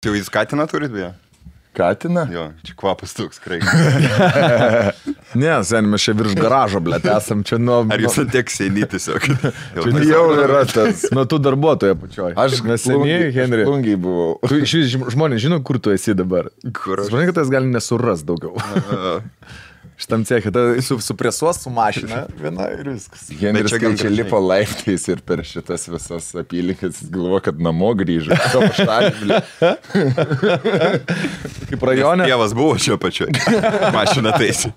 Jau jūs katiną turit, beje? Katiną? Jo, čia kvapas toks, krai. Ne, sen, mes čia virš garažo, blėt, esam čia nuo... Ar jūs tiek seniai tiesiog? Jau yra tas. Nuo tų darbuotojų pačioj. Aš neseniai, Henri. Plungiai buvau. Tu iš vis žmonės žino, kur tu esi dabar. Kur aš? Žmonės, kad tas gali nesuras daugiau. Šitam cechė, supresuos su mašina viena ir viskas. Henris čia lipo laiptais ir per šitas visas apylinkės galvo, kad namo grįžo. Kaip rajone. Tėvas buvo čia pačioj. Mašina taisi.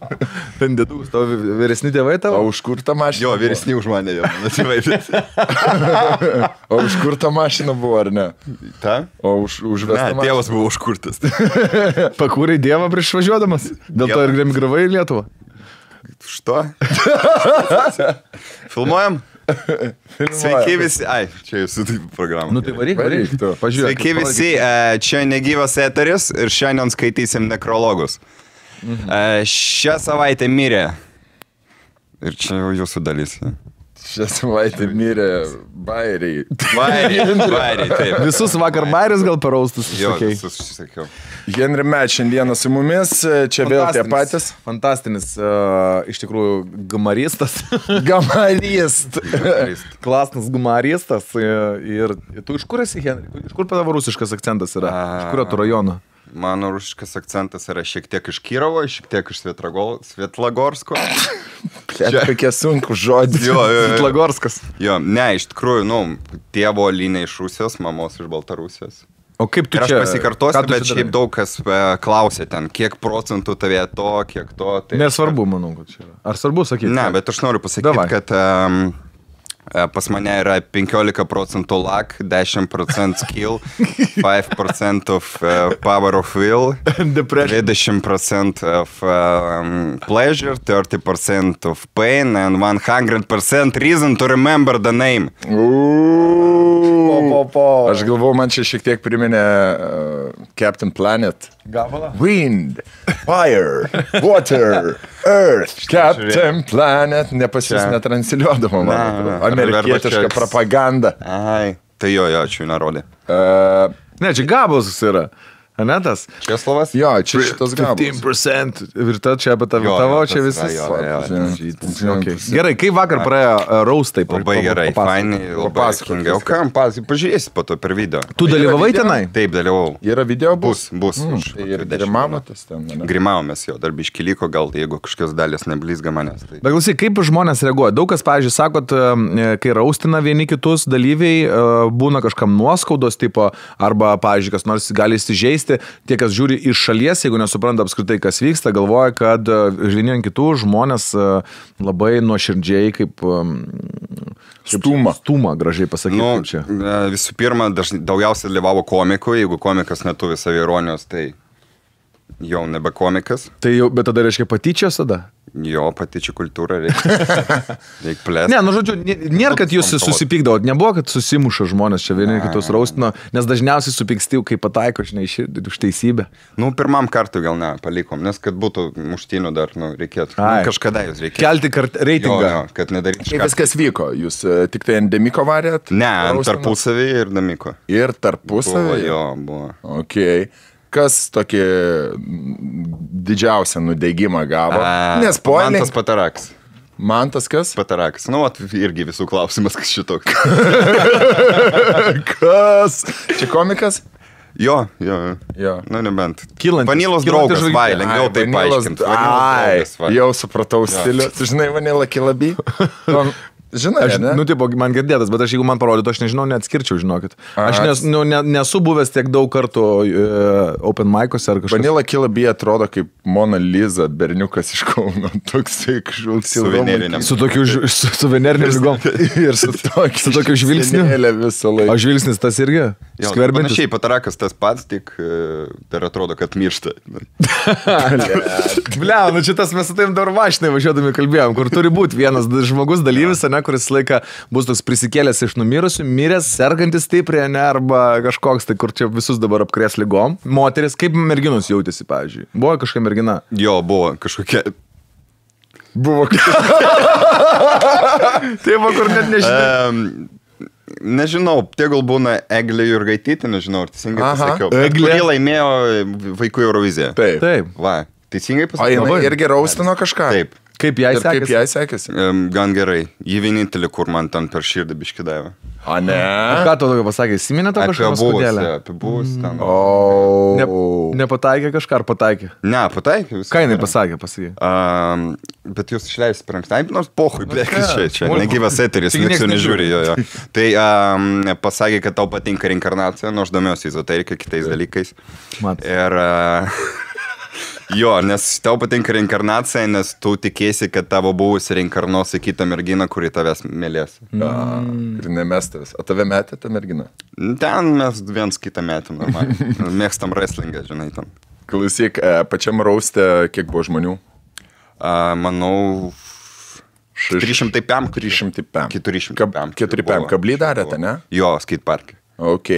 Ten dėdus, tavo vyresni tėvai tavo? O už kur ta mašina? Jo, vyresni už mane jau. O už kur ta mašina buvo, ar ne? Ta? O už vestą mašiną? Tėvas buvo užkurtas. Pakūrei Dievą prieš važiuodamas? Dėl to ir emigravai į Lietuvą? Što? Filmuojam? Sveiki visi. Ai, čia jūsų programą. Nu tai varyk tu. Pažiūrėk. Sveiki visi, čia negyvas eteris ir šiandien skaitysim nekrologus. Šią savaitę mirė. Ir čia jau jūsų dalis. Šią savaitę mirė bairiai. Bairiai, taip. Visus vakar bairis gal paraustus Jo, sakei. visus sakiau. Henri Met šiandieną su mumis, čia vėl tie patys. Fantastinis, iš tikrųjų, gumaristas. Gamarist. Klasnas gumaristas. Ir tu iš kur esi, Henri? Iš kur tavo rusiškas akcentas yra? Iš kurio tu rajono? Mano rusiškas akcentas yra šiek tiek iš Kirovo, šiek tiek iš Svietlagorsko. Čia kokie sunku žodžiai. Jo. Svitlagorskas. Jo, ne, iš tikrųjų, tėvo linija iš Rusijos, mamos iš Baltarusijos. O kaip tu Ir aš čia? pasikartosiu, bet šiaip daug kas klausė ten, kiek procentų tavė to, kiek to. Tai Nesvarbu, manau, kad čia yra. Ar svarbu sakyti? Ne, bet aš noriu pasakyti, kad pas mane yra 15% luck, 10% skill, 5% of power of will, 20% of pleasure, 30% of pain, and 100% reason to remember the name. Aš galvoju, man čia šiek tiek priminė Captain Planet. Gabalą? Wind, fire, water, earth, Captain Planet. Nepasis netransiliuodama, man atrodo. Amerikietiška propaganda. Ai, tai jo, čia nerodė. Ne, čia Gabalas yra. Anetas? Česlovas? Jo, čia šitas Gabalas. 15%. Ir ta čia apie tavo, čia visas. Okay. Gerai, kaip vakar praėjo raustai? Labai gerai, fainai, labai atsakingai. O kam, pažiūrėsi po to per video. Tu dalyvavai tenai? Taip, dalyvau. Yra video bus? Bus. Ir grimavotės ten, ne? Grimavomės jo, dar biškį liko, gal jeigu kažkokios dalis neblizga manęs. Tai... Bet klausyk, kaip žmonės reaguoja? Daug kas, pavyzdžiui, sakot, kai raustina vieni kitus dalyviai, būna kažkam nuoskaudos tipo, arba, pavyzdžiui, kas nors gali įsižeisti. Tie, kas žiūri iš šalies, jeigu nesupranta apskritai, kas vyksta, galvoja, kad vieni ant kitų žmonės labai nuoširdžiai kaip stūma, gražiai pasakyti. Čia. Visų pirma, daugiausiai dalyvavo komikų, jeigu komikas neturi saviironijos, tai jau nebe komikas. Tai jau, bet tada reiškia patyčios tada? Jo, patyčių kultūra reikia plėsti. Ne, nu žodžiu, nėra, kad jūs susipykdavot, nebuvo, kad susimuša žmonės čia vieni kitus raustino, nes dažniausiai supyksti, kai pataiko, žinai, už teisybę. Nu, pirmam kartui gal ne, palikom, nes kad būtų muštinių dar, reikėtų. Kažkada jūs reikėtų. Kelti reitingą. Jo, kad nedaryti. Kaip viskas vyko? Jūs tik tai ant Demiko varėt? Ne, ant tarpusavį ir Demiko. Ir tarpusavį? Jo, buvo. Okei. Kas tokį didžiausią nudegimą gavo? Mantas Patarakas. Mantas kas? Patarakas. Nu, irgi visų klausimas, kas šitoks. Kas? Čia komikas? Jo. Nu, nebent. Vanilos draugas, vai, lengviau tai paaiškinti. Jau supratau stilių. Tu žinai, Vanilla Kilaby? Žinai, nu, tipo, man girdėtas, bet aš jeigu man parodytų, aš nežinau, neatskirčiau, žinokit. Aš nesu buvęs tiek daug kartų open mic'ose ar kažkas. Vanilla Kilaby atrodo kaip Mona Lisa, berniukas iš Kauno, toksai kažkoks suveneriniam. Su tokiu suveneriniam lygom. Ir su tokiu žvilgsniu. O žvilgsnis tas irgi? Skverbiantis. Panašiai, Patarakas tas pats, tik dar atrodo, kad miršta. Blia, nu čia tas mes su tavim dar vašinai važiuodami kalbėjom, kur turi būti vienas žmogus dalyvis, ne, kuris laiką bus toks prisikėlęs iš numirusių, miręs, sergantis stipriai, ne, arba kažkoks, tai kur čia visus dabar apkrės ligom. Moteris, kaip merginos jautėsi, pavyzdžiui? Buvo kažkokia mergina? Jo, buvo kažkokia... Buvo kažkokia... Taip, kur net nežinai. Nežinau, tegul būna Eglė Jurgaitytė, nežinau, ar teisingai pasakiau. Eglė laimėjo Vaikų Euroviziją. Taip. Va, teisingai O pasakiau. jinai irgi raustino kažką? Taip. Kaip jai Ir kaip sekėsi? jai sekėsi? Gan gerai. Ji vienintelė, kur man ten per širdį biškį davė. O ne? Ką tu tokio pasakė? Įsiminė tau kažką paskudėlę? Apie buvus ten. Nepataikė kažką ar pataikė? Ne, pataikė viską. Ką jinai pasakė? Bet jūs išleisite per anksti. Nors pohui, čia Smulku. negyvas eteris, Taigi nieks nieks jau nežiūri jo. Tai pasakė, kad tau patinka reinkarnacija, nors domiuosi ezoterika kitais dalykais. Mat. Ir jo, nes tau patinka reinkarnacija, nes tu tikėsi, kad tavo buvusi reinkarnuos į kitą merginą, kuri tavęs mylės. Ir nemestas. O tave metė ta mergina? Ten mes viens kitą metėm normaliai. Mėgstam wrestlingą, žinai, ten. Klausyk, pačiam rauste kiek buvo žmonių? Manau, 305. 305. 405. 405. Kablį darėte, ne? Jo, skateparke. Ok.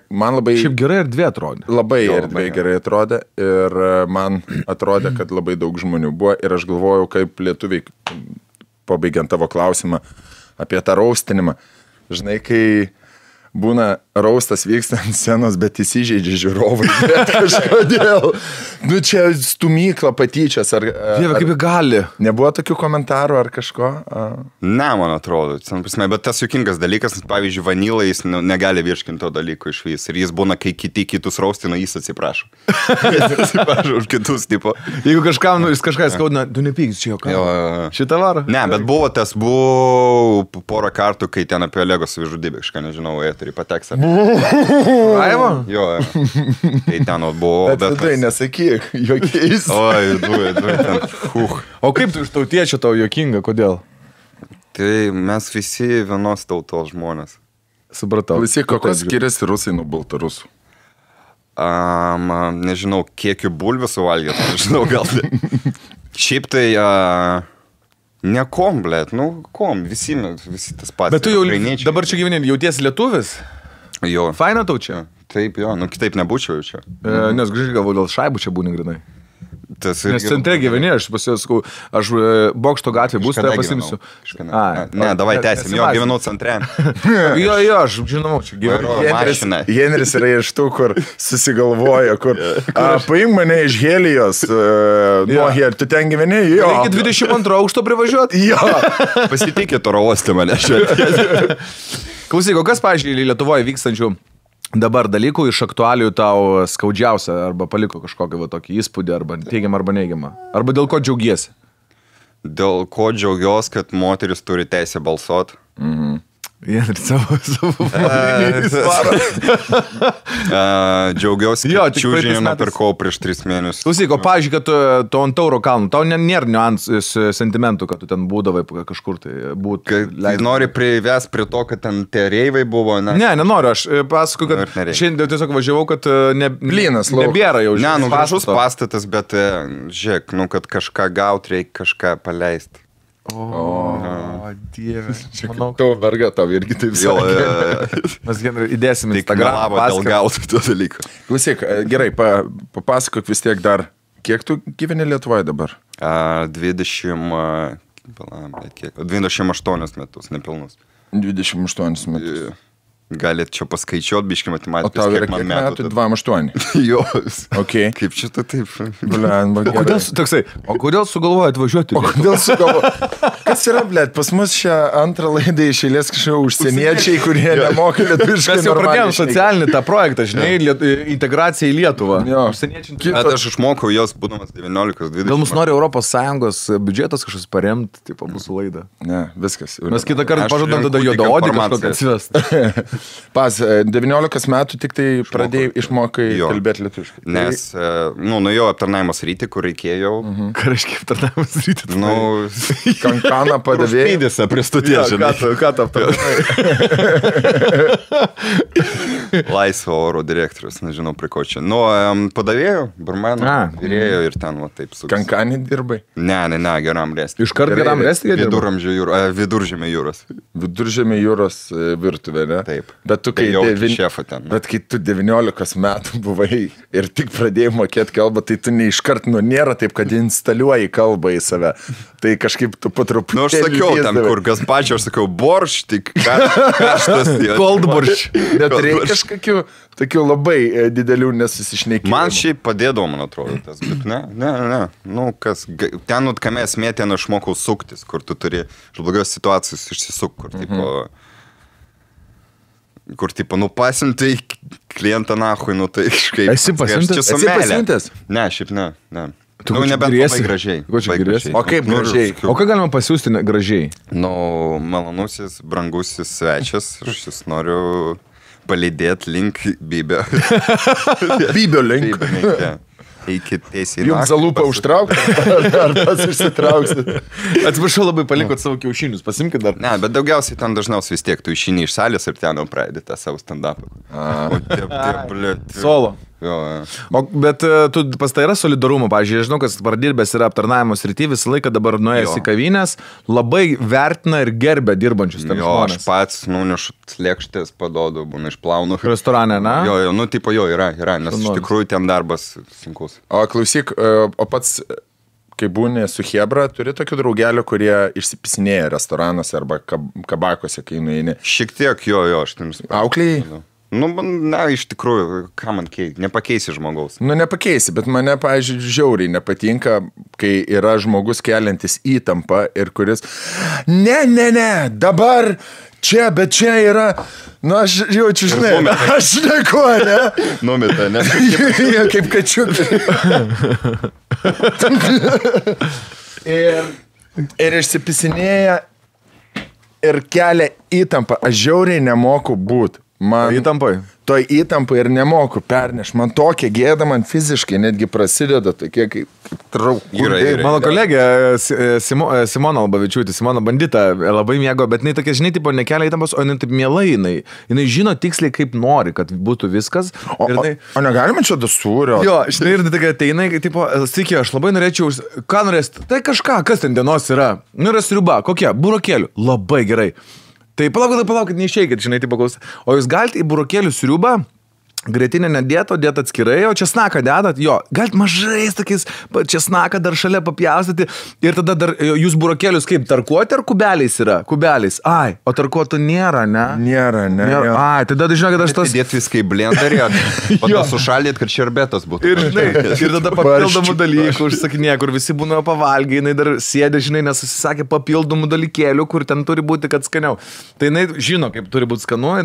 Man labai... Šiaip gerai erdvė atrodė. Labai Jo, erdvė labai gerai atrodė ir man atrodė, kad labai daug žmonių buvo ir aš galvojau, kaip lietuviai, pabaigiant tavo klausimą apie tą raustinimą. Žinai, kai būna raustas vyksta ant scenos, bet įsižeidžia žiūrovai. Bet kažkodėl. Nu čia stumykla patyčias. Dieve, kaip jį gali. Nebuvo tokių komentarų ar kažko? Ne, man atrodo. Bet tas juokingas dalykas, pavyzdžiui, Vanila, jis negali virškinti to dalyko iš vis. Ir jis būna, kai kitus raustina, jis atsiprašo. Jis atsiprašo už kitus, tipo. Jeigu kažkam, jis kažką skaudina, tu nepykis čia jau ką. Šitą varą? Ne, bet buvo porą kartų, kai ten apie Lego savižudybę, kažką nežinau, eterį pateks. Raivo? Jo, tai ten buvo. Bet tai nesakyk, jokiais. Oi, du ten. O kaip tu iš tautiečio tau juokinga, kodėl? Tai mes visi vienos tautos žmonės. Supratau. Klausyk, kokios skiriasi rusai nuo baltarusų? Nežinau, kiek jų bulvių suvalgėt, nežinau, gal. Šiaip tai nekom, blėt, kom, visi tas pats. Bet tu jau dabar čia gyveni, jautiesi lietuvis? Jo. Faina tau čia? Taip, jo, kitaip nebūčiau čia. Nes grįžai galvoju, dėl šaibų čia būni grinai. Tas Nes centre gyveni, aš pasisakau, aš Bokšto gatvė bus, tai pasimsiu. Ne, davai tęsim, jo, gyvenau centre. Jo, aš žinau, čia gyvenu. Henris yra iš tų, kur susigalvoja, kur paimk mane iš Helijos, nuo Helijos, tu ten gyveni, jo. Reikia 22 aukšto privažiuoti. Jo. Pasitikėt oro uoste mane šiandien. Klausyk, o kas, pavyzdžiui, Lietuvoje vykstančių dabar dalykų iš aktualijų tau skaudžiausia arba paliko kažkokį tokį įspūdį arba teigiamą arba neigiamą? Arba dėl ko džiaugiesi? Dėl ko džiaugiuosi, kad moteris turi teisę balsuoti. Jie ir savo džiaugiuosi, Jo, kad tik čiūžinį praeitais metais. nupirkau prieš 3 mėnesius. Klausyk, o pavyzdžiui, kad tu ant Tauro kalnų, tau nėra niuansų sentimentų, kad tu ten būdavai kažkur tai būt. Tai nori prives prie to, kad ten tie reivai buvo, ne? Ne, nenoriu, aš pasakoju, Ir kad nereikia. šiandien tiesiog važiavau, kad Blynas laukas. nebėra jau. Ne, žinai, gražus pastato. pastatas, bet žiūrėk, kad kažką gauti reikia kažką paleisti. O, Dieve. Manau, Tavo verga tau irgi taip Jo, sakė. mes įdėsim į tik melavo dėl gauti to dalyko. Klausyk, gerai, papasakok vis tiek dar, kiek tu gyveni Lietuvoje dabar? 28 metus, nepilnus. 28 metus. Galit čia paskaičiuot, biški O matematikos, tau yra kiek man kiek metų. metų? 28. Jo, Ok. kaip čia tu taip? Blemba, O kodėl, gerai. toksai, o kodėl sugalvoji atvažiuoti? O kodėl sugalvo? Kas yra, blėt, pas mus šią antrą laidą išėlės kažkokie užsieniečiai, kurie nemoka lietuviškai. Mes jau pradėjom normaliai socialinį tą projektą, žinai, integraciją į Lietuvą. Jo. Užsieniečiai. Bet aš išmokau jos, būdamas 19-20. Gal mus nori ES biudžetas kažkas paremti, tipo mūsų laidą. Ne, viskas. Mes kitą kartą Aš pažadam renku tada tik juodaodį kažkokią informacijas. atsivest. Pas, 19 metų tik tai pradėjai išmokai Jo. kalbėti lietuviškai. Nes, nuėjau aptarnaimo sritį, kur reikėjau. Ką reiškia aptarnavimas rytį? Kankaną padavėjai. Pydėse prie stoties, žinai. Ką tu aptarnavai? Laisvo oro direktorius, nežinau, prie ko čia. Padavėjau, barmenų, vyrėjo ir ten, va, taip su... Kankanį dirbai. Ne, geram resti. Iškart geram resti? Viduržemio jūros. Viduržemė jūros virtuvė, ne? Taip. Bet tu, kai šefą ten. Bet kai tu 19 metų buvai ir tik pradėjai mokėti kalbą, tai tu neiškart, nėra taip, kad instaliuoji kalbą į save. Tai kažkaip tu patruputėlį... Aš sakiau tam, kur gazpačio, aš sakiau, borš, tik karštas. Cold borš. Bet reikia kažkokių tokių labai didelių nesusišnekėjimų. Man šiaip padėdavo, man atrodo, tas, bet ne. Nu, kas, ten, kame esmė, ten aš mokau suktis, kur tu turi iš blogios situacijos išsisuk, kur tipo, pasimtai klientą nahui, tai kažkaip... Esi pasiuntęs? Ne, šiaip ne. Tu nebent labai gražiai. O kaip gražiai? O ką galima pasiūsti gražiai? Malonusis, brangusis svečias, aš jūs noriu palydėti link Bybio. Bybio link. Iki teisėjai. Jums zalūpą užtraukti? Ar tas išsitrauksit? Atsiprašau, labai palikot savo kiaušinius, pasimkit dar. Ne, bet daugiausiai ten dažniausiai vis tiek tu išeini iš salės ir ten jau pradedi tą savo stand-upą. Solo. Jo. Bet tu pas tai yra solidarumo, pavyzdžiui, žinau, kas pradirbęs yra aptarnavimo srity, visą laiką dabar nuėjęs į kavinės, labai vertina ir gerbia dirbančius ten žmonės. Aš pats, nunešu lėkštės, padodu, būna išplaunu. Restorane, na? Jo, tipo yra, nes iš tikrųjų ten darbas sunkus. O klausyk, o pats, kai būni su Hebra, turi tokių draugelių, kurie išsipisinėja restoranuose arba kabakose, kai nueini? Šiek tiek, jo, aš ten Auklėjai? Iš tikrųjų, ką man nepakeisi žmogaus. Nepakeisi, bet mane, pavyzdžiui, žiauriai nepatinka, kai yra žmogus keliantis įtampą ir kuris, ne, dabar čia, bet čia yra, aš jaučiu, žinai, aš neku, ne? Numita, ne? Kaip kačiukai. Ir išsipisinėja ir kelia įtampą. Aš žiauriai nemoku būti. Toj įtampai ir nemoku perneš. Man tokia gėda, man fiziškai netgi prasideda tokie kaip traukūrai. Mano kolegė Simona Albavičiūtė, Simona Bandita, labai mėgo, bet jinai tokia, žinai, tipo, nekelia įtampos, o jinai taip mielai, jinai žino tiksliai, kaip nori, kad būtų viskas. O negalima čia dasūrio? Jo, žinai, ir tokia ateina, tipo, sveiki, aš labai norėčiau, ką norėsit? Tai kažką, kas ten dienos yra? Yra sriuba, kokia? Burokėlių. Labai gerai. Tai palaukit, neišeikit, žinai, taip paklausyti. O jūs galite į burokėlių sriubą, grėtinę nedėt, o dėt atskirai, o česnaką dedat, jo, galite mažais tokiais česnaką dar šalia papjaustyti ir tada dar jūs burokėlius kaip tarkuoti ar kubeliais yra? Kubeliais. Ai, o tarkuotų nėra, ne? Nėra. Ai, tada žinau, kad aš tas... Dėt viską į blenderį, o to sušaldėt, kad šerbetas būtų. Ir tada papildomų dalykų užsakinė, kur visi būna pavalgiai, jinai dar sėdė, žinai, nes susisakė papildomų dalykėlių, kur ten turi būti, kad skaniau. Tai jinai žino, kaip turi būti skanu.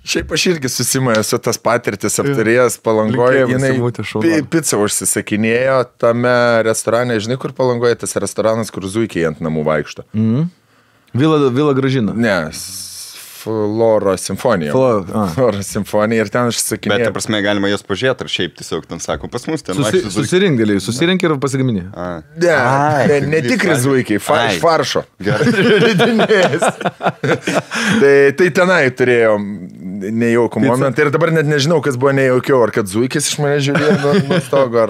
Šiaip aš irgi susimaju su tas patirtis aptarėjęs Palangoje, jinai pizzą užsisakinėjo tame restorane, žinai, kur Palangoje tas restoranas, kur zuikiai ant namų vaikšto. Vila Gražina. Ne, Flora Simfonija. Flora Simfonija ir ten užsisakinėjo. Bet, ta prasme, galima jos pažiūrėti, ar šiaip tiesiog ten sako, pas mus ten susirink ir pasigaminė. Ne tikri zuikiai, iš faršo. Tai tenai turėjom nejaukų momentą ir dabar net nežinau, kas buvo nejaukiau, ar kad zuikis iš mane žiūrėjo nuo stogo,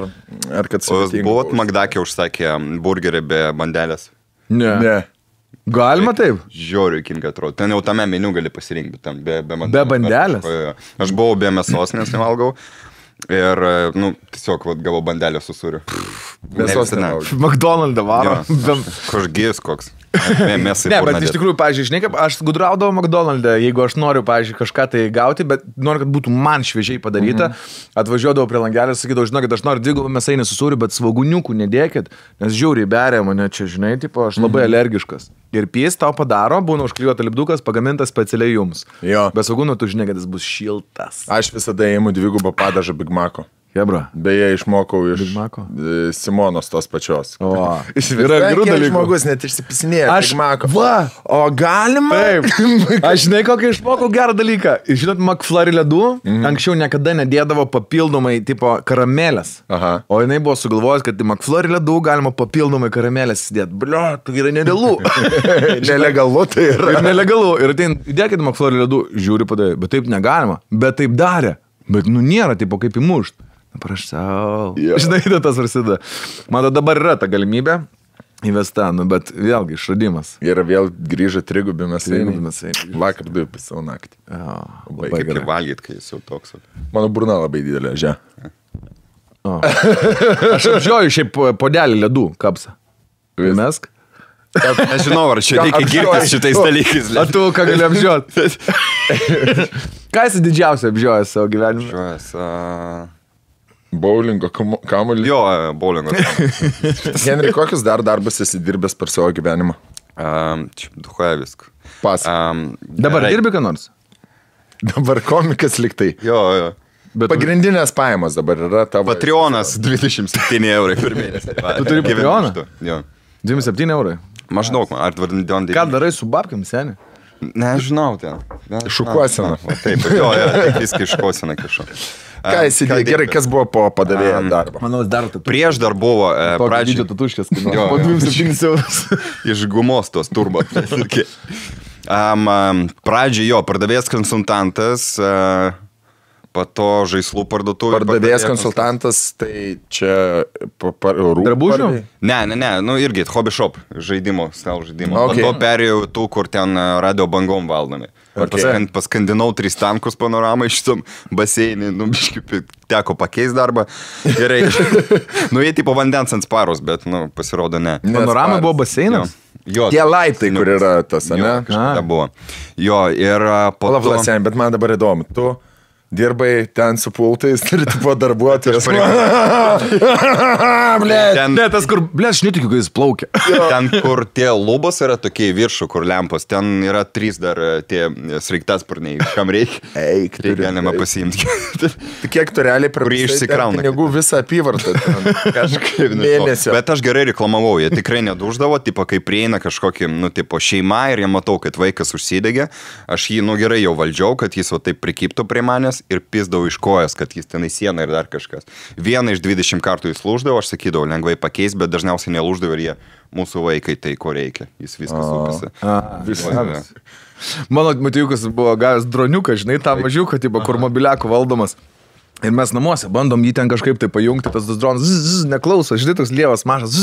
ar kad sutinka. O buvot Magdakė užsakė burgerį be bandelės? Ne. Galima taip? Žiauriai kinga atrodo. Ten jau tame meniu gali pasirinkti, ten be bandelės. Be bandelės? Aš buvau be mėsos, nes nevalgau. Ir, tiesiog gavau bandelę su sūriu. Mėsos nevalgau. McDonald's varo. Kažgis koks. Ne, bet iš tikrųjų, pavyzdžiui, žinai, kaip aš gudraudavau McDonald'e, jeigu aš noriu, pavyzdžiui, kažką tai gauti, bet noriu, kad būtų man šviežiai padaryta, atvažiuodavau prie langelio, sakydavau, žinokit, aš noriu 2 mėsainį su sūriu, bet svoguniukų nedėkit, nes žiauriai beria mane čia, žinai, tipo, aš labai alergiškas. Ir pys tau padaro, būna užklijuota lipdukas, pagamintas specialiai jums. Jo. Be svogūnų tu žinai, kad jis bus šiltas. Aš visada įimu 2 padažą Big Mac'o. Hebra. Beje, išmokau iš Simonos tos pačios. O, yra gerų dalykų. Žmogus net išsipisinėja Big Mac'o. Va, o galima? Taip. Aš žinai, kokį išmokau gerą dalyką. Žinot, McFlurry ledų anksčiau niekada nedėdavo papildomai tipo karamelės. Aha. O jinai buvo sugalvojęs, kad į McFlurry ledų galima papildomai karamelės įdėti. Blia, tai yra nerealu. Nelegalu tai yra. Ir nelegalu. Ir atein, įdėkit McFlurry ledų, žiūri padavė. Bet taip negalima. Bet taip darė. Bet nėra tipo kaip įmušt. Prašau. Yeah. Žinai, tas prasideda. Man dabar yra ta galimybė. Įvesta, nu, bet vėlgi išradimas. Ir vėl grįžo trigubi Trigubi mėsainiai. mėsainiai. Vakar 2 pisau naktį. Labai Kaip gerai. ir valgyt, kai jis jau toks. Mano burna labai didelė, žia. Aš apžioju šiaip podelį ledų kapsą. Mesk. Nežinau, ar čia reikia girtis šitais dalykais. A tu ką gali apžioti? Ką esi didžiausia apžiojęs savo gyvenime? Žiūrės. Bowlingo kamuolį. Jo, bowlingo. Henry, kokius dar darbus esi dirbęs per savo gyvenimą? Čia duhoja viską. Pas. Dabar dirbi ką nors? Dabar komikas liktai. Jo. Bet Pagrindinės pajamos dabar yra tavo. Patreonas 27 eurai per mėnesį. Tu turi Patreoną? Jo. 27 eurai. Maždaug, ar dvardin Ką darai su babkiam, seni? Nežinau ten. Šukuosena. Taip, jo, tik viską iškosena kišu. Ką įsidėjai? Gerai, kas buvo po padavėjo darbo? Manau, dar tu. Prieš dar buvo Pradžio tatuškės, kai Jo, po jo. 27 eurus. iš gumos tos turbo. Pradžio jo, pardavėjas konsultantas, po to žaislų parduotuvė. Pardavėjas konsultantas, tai čia rūbų. Drabužių? Ne, nu irgi hobby shop žaidimo, stalo žaidimo. Okay. Po to perėjau tų, kur ten radio bangom valdomi. Okay. Paskandinau 3 tankus panoramą iš tam baseinį, nu, biškai teko pakeisti darbą. Gerai. Nu, jie tipo vandens ant sparos, bet, nu, pasirodo ne. Panorama buvo baseinas? Jo, Tie laiptai, kur yra tas, jo, ne? kažkada buvo. Jo, ir po Palauk, to... Vlasen, bet man dabar įdomu. Tu dirbai ten su pultais ir tu buvo darbuotojas. Ten, Ne, tas kur, ble, aš netikiu, kai jis plaukia. ten, kur tie lubos yra tokie į viršų, kur lempos, ten yra 3 dar tie sraigtasparniai, kam reikia. Eik, Tai galima pasiimti. Tai kiek tu realiai Kurį išsikrauna. pinigų visą apyvartą. Kažkaip Mėnesio. Bet aš gerai reklamavau, jie tikrai neduždavo, tipo, kai prieina kažkokį, nu, tipo, šeima ir jie matau, kad vaikas užsidegė, aš jį, nu, gerai jau valdžiau, kad jis va taip prikiptų prie manęs ir pisdavau iš kojas, kad jis tenai sieną ir dar kažkas. Vieną iš 20 kartų jis lūždavo, aš sakydavau, lengvai pakeis, bet dažniausiai nelūždavo ir jie mūsų vaikai, tai ko reikia, jis viskas upasi. Mano matijukas buvo gavęs droniuką, žinai, tą mažiuką, tipo, kur mobiliakų valdomas. Ir mes namuose bandom jį ten kažkaip tai pajungti, tas dronas neklauso, žinai, toks lievas mažas.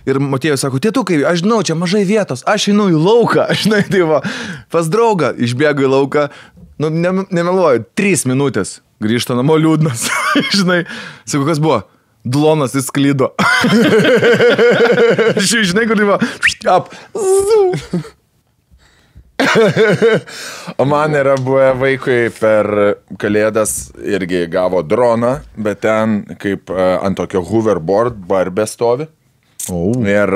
Ir Matėjus sako, tėtukai, aš žinau, čia mažai vietos, aš einu į lauką, žinai, tai va, pas draugą išbėgu į lauką, nu, nemeluoju, 3 minutės, grįžta namo liūdnas, žinai, sako, kas buvo? Dlonas įsklydo. Žinai, kur buvo, O man yra buvę vaikui per kalėdas irgi gavo droną, bet ten kaip ant tokio hoverboard barbė stovi. Ir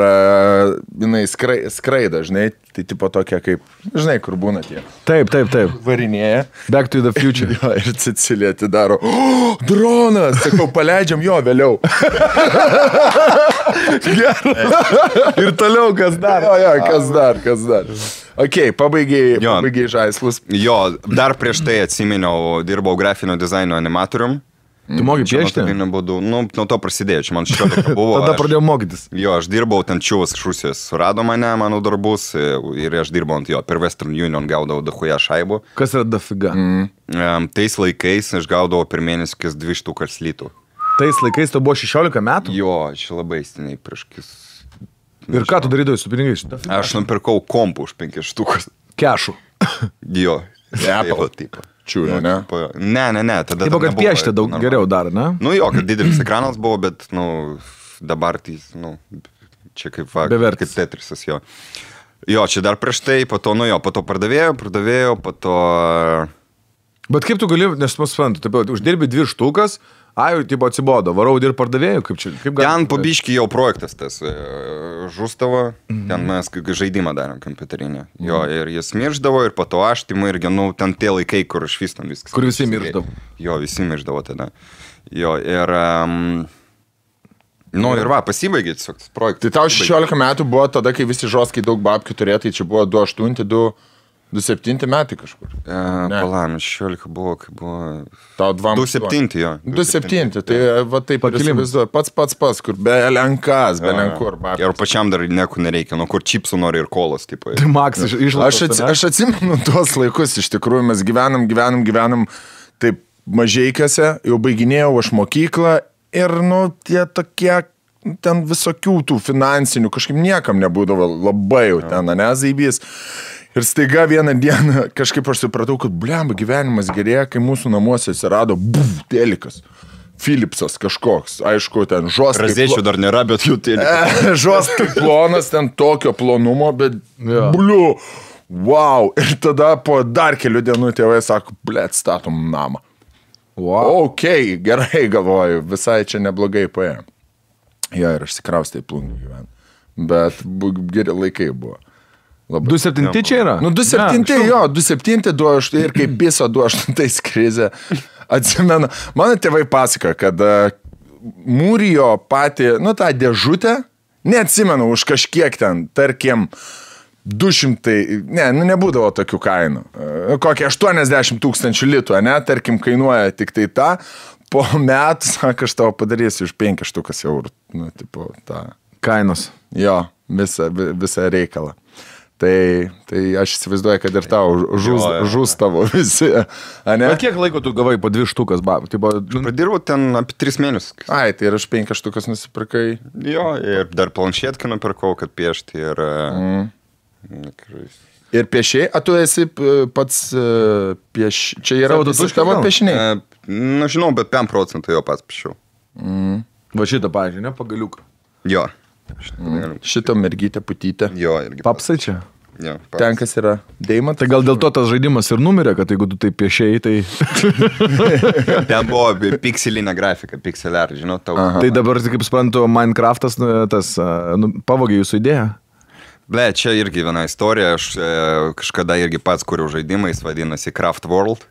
jinai skraida, žinai, tai tipo tokia kaip, žinai, kur būna tie. Taip. Varinėja. Back to the future. Jo, ir Cecilija atidaro, dronas, sakau, paleidžiam jo vėliau. Ir toliau kas dar. Jo, kas dar. Ok, pabaigiai žaislus. Jo, dar prieš tai atsiminiau, dirbau grafinio dizaino animatorium. Tu mokai piešti? Nu, nuo to prasidėjo, čia man 16 buvo. Tada pradėjau mokytis. Jo, aš dirbau, ten čiūvas iš Rusijos surado mane, mano darbus, ir aš dirbau ant jo, per Western Union gaudavau dahuja šaibų. Kas yra dafiga? Tais laikais aš gaudavau per mėnesį 200 litų. Tais laikais tu buvo 16 metų? Jo, čia labai stiniai prieš kis. Ir ką tu darydavai su pinigais? Aš nupirkau kompų už 5 štukas. Kešų. Jo. Apple tipo. Čiūrė, ne? Ne, tada... Taip, kad piešti daug geriau dar, ne? Nu jo, kad didelis ekranas buvo, bet, nu, dabar tai, nu, čia kaip Bevertis. kaip Tetrisas, jo. Jo, čia dar prieš tai, po to, nu jo, po to pardavėjau, po to... Bet kaip tu gali, nes mus suprantu, taip, uždirbi 2 štukas, jau, tipo, atsibodo, varau dirb pardavėjų, kaip čia, kaip gali... Ten pabiški jau projektas tas žūstavo, ten mes žaidimą darėm kompiuterinį. Jo, ir jis mirždavo, ir po to aš, timai irgi, nu, ten tie laikai, kur aš vis tam viskas. Kur visi mirždavo. Jo, visi mirždavo tada. Jo, ir... Nu, ir va, pasibaigė tiesiog tas projektas. Tai tau 16 metų buvo tada, kai visi žoskai daug babkių turėjo, tai čia buvo 28, 27 metai kažkur. Palam, 16 buvo, kai buvo... Tau 27, jo. 27, tai va taip įsivaizduoju, pats, kur be lenkas, be lenkur. Ir pačiam dar nieko nereikia, nu kur čipsų nori ir kolos, tipo. Tai Maks išlaidos. Aš atsimenu tuos laikus, iš tikrųjų mes gyvenam taip mažeikiuose, jau baiginėjau aš mokyklą ir, nu, tie tokie, ten visokių tų finansinių, kažkaip niekam nebūdavo labai jau ten, ne, zaibys. Ir staiga vieną dieną kažkaip aš supratau, kad blemba gyvenimas gerėja, kai mūsų namuose atsirado telikas. Philipsas kažkoks, aišku, ten žoskai. Razėčių dar nėra, bet jų telikas. Žoskai plonas, ten tokio plonumo, bet bliu, wow. Ir tada po dar kelių dienų tėvai sako, blėt, statom namą. Wow. Ok, gerai galvoju, visai čia neblogai paėjo. Jo, ir aš sikraustai plungį gyvenu. Bet geri laikai buvo. 2.7 čia yra? Nu, 2.7, jo, 2.7, 2.8 ir kaip piso 2.8 krizė. Atsimenu, mano tėvai pasako, kad mūrijo patį, nu, tą dėžutę, neatsimenu, už kažkiek ten, tarkim, 200, nebūdavo tokių kainų. Kokie 80 000 litų, ne, tarkim, kainuoja tik tai tą. Po metų, sako, aš tavo padarysiu už 5 eurų. Nu, tipo, tą. Kainos. Jo, visą reikalą. Tai aš įsivaizduoju, kad ir tau žus tavo visi. Bet kiek laiko tu gavai po 2 štukas? Padirbau ten apie 3 mėnesius. Ai, tai ir aš 5 štukas nusipirkai. Jo, ir dar planšetkę nupirkau, kad piešti. Ir piešiai, tu esi pats čia yra tavo piešiniai? Na, žinau, bet 5% jo pats piešiau. Va šitą, pavyzdžiui, ne, pagaliuką. Jo. Šitą mergytę putytę. Jo, irgi. Papsai čia? Jo, papsai. Ten, kas yra deimantas. Tai gal dėl to tas žaidimas ir numirė, kad jeigu tu tai piešėjai, tai... Ten buvo pikselinė grafika, pixel art, žinau, tau. Tai dabar, kaip suprantu, Minecraftas pavogė jūsų idėją? Ble, čia irgi viena istorija, aš kažkada irgi pats kuriu žaidimą, jis vadinasi Craft World.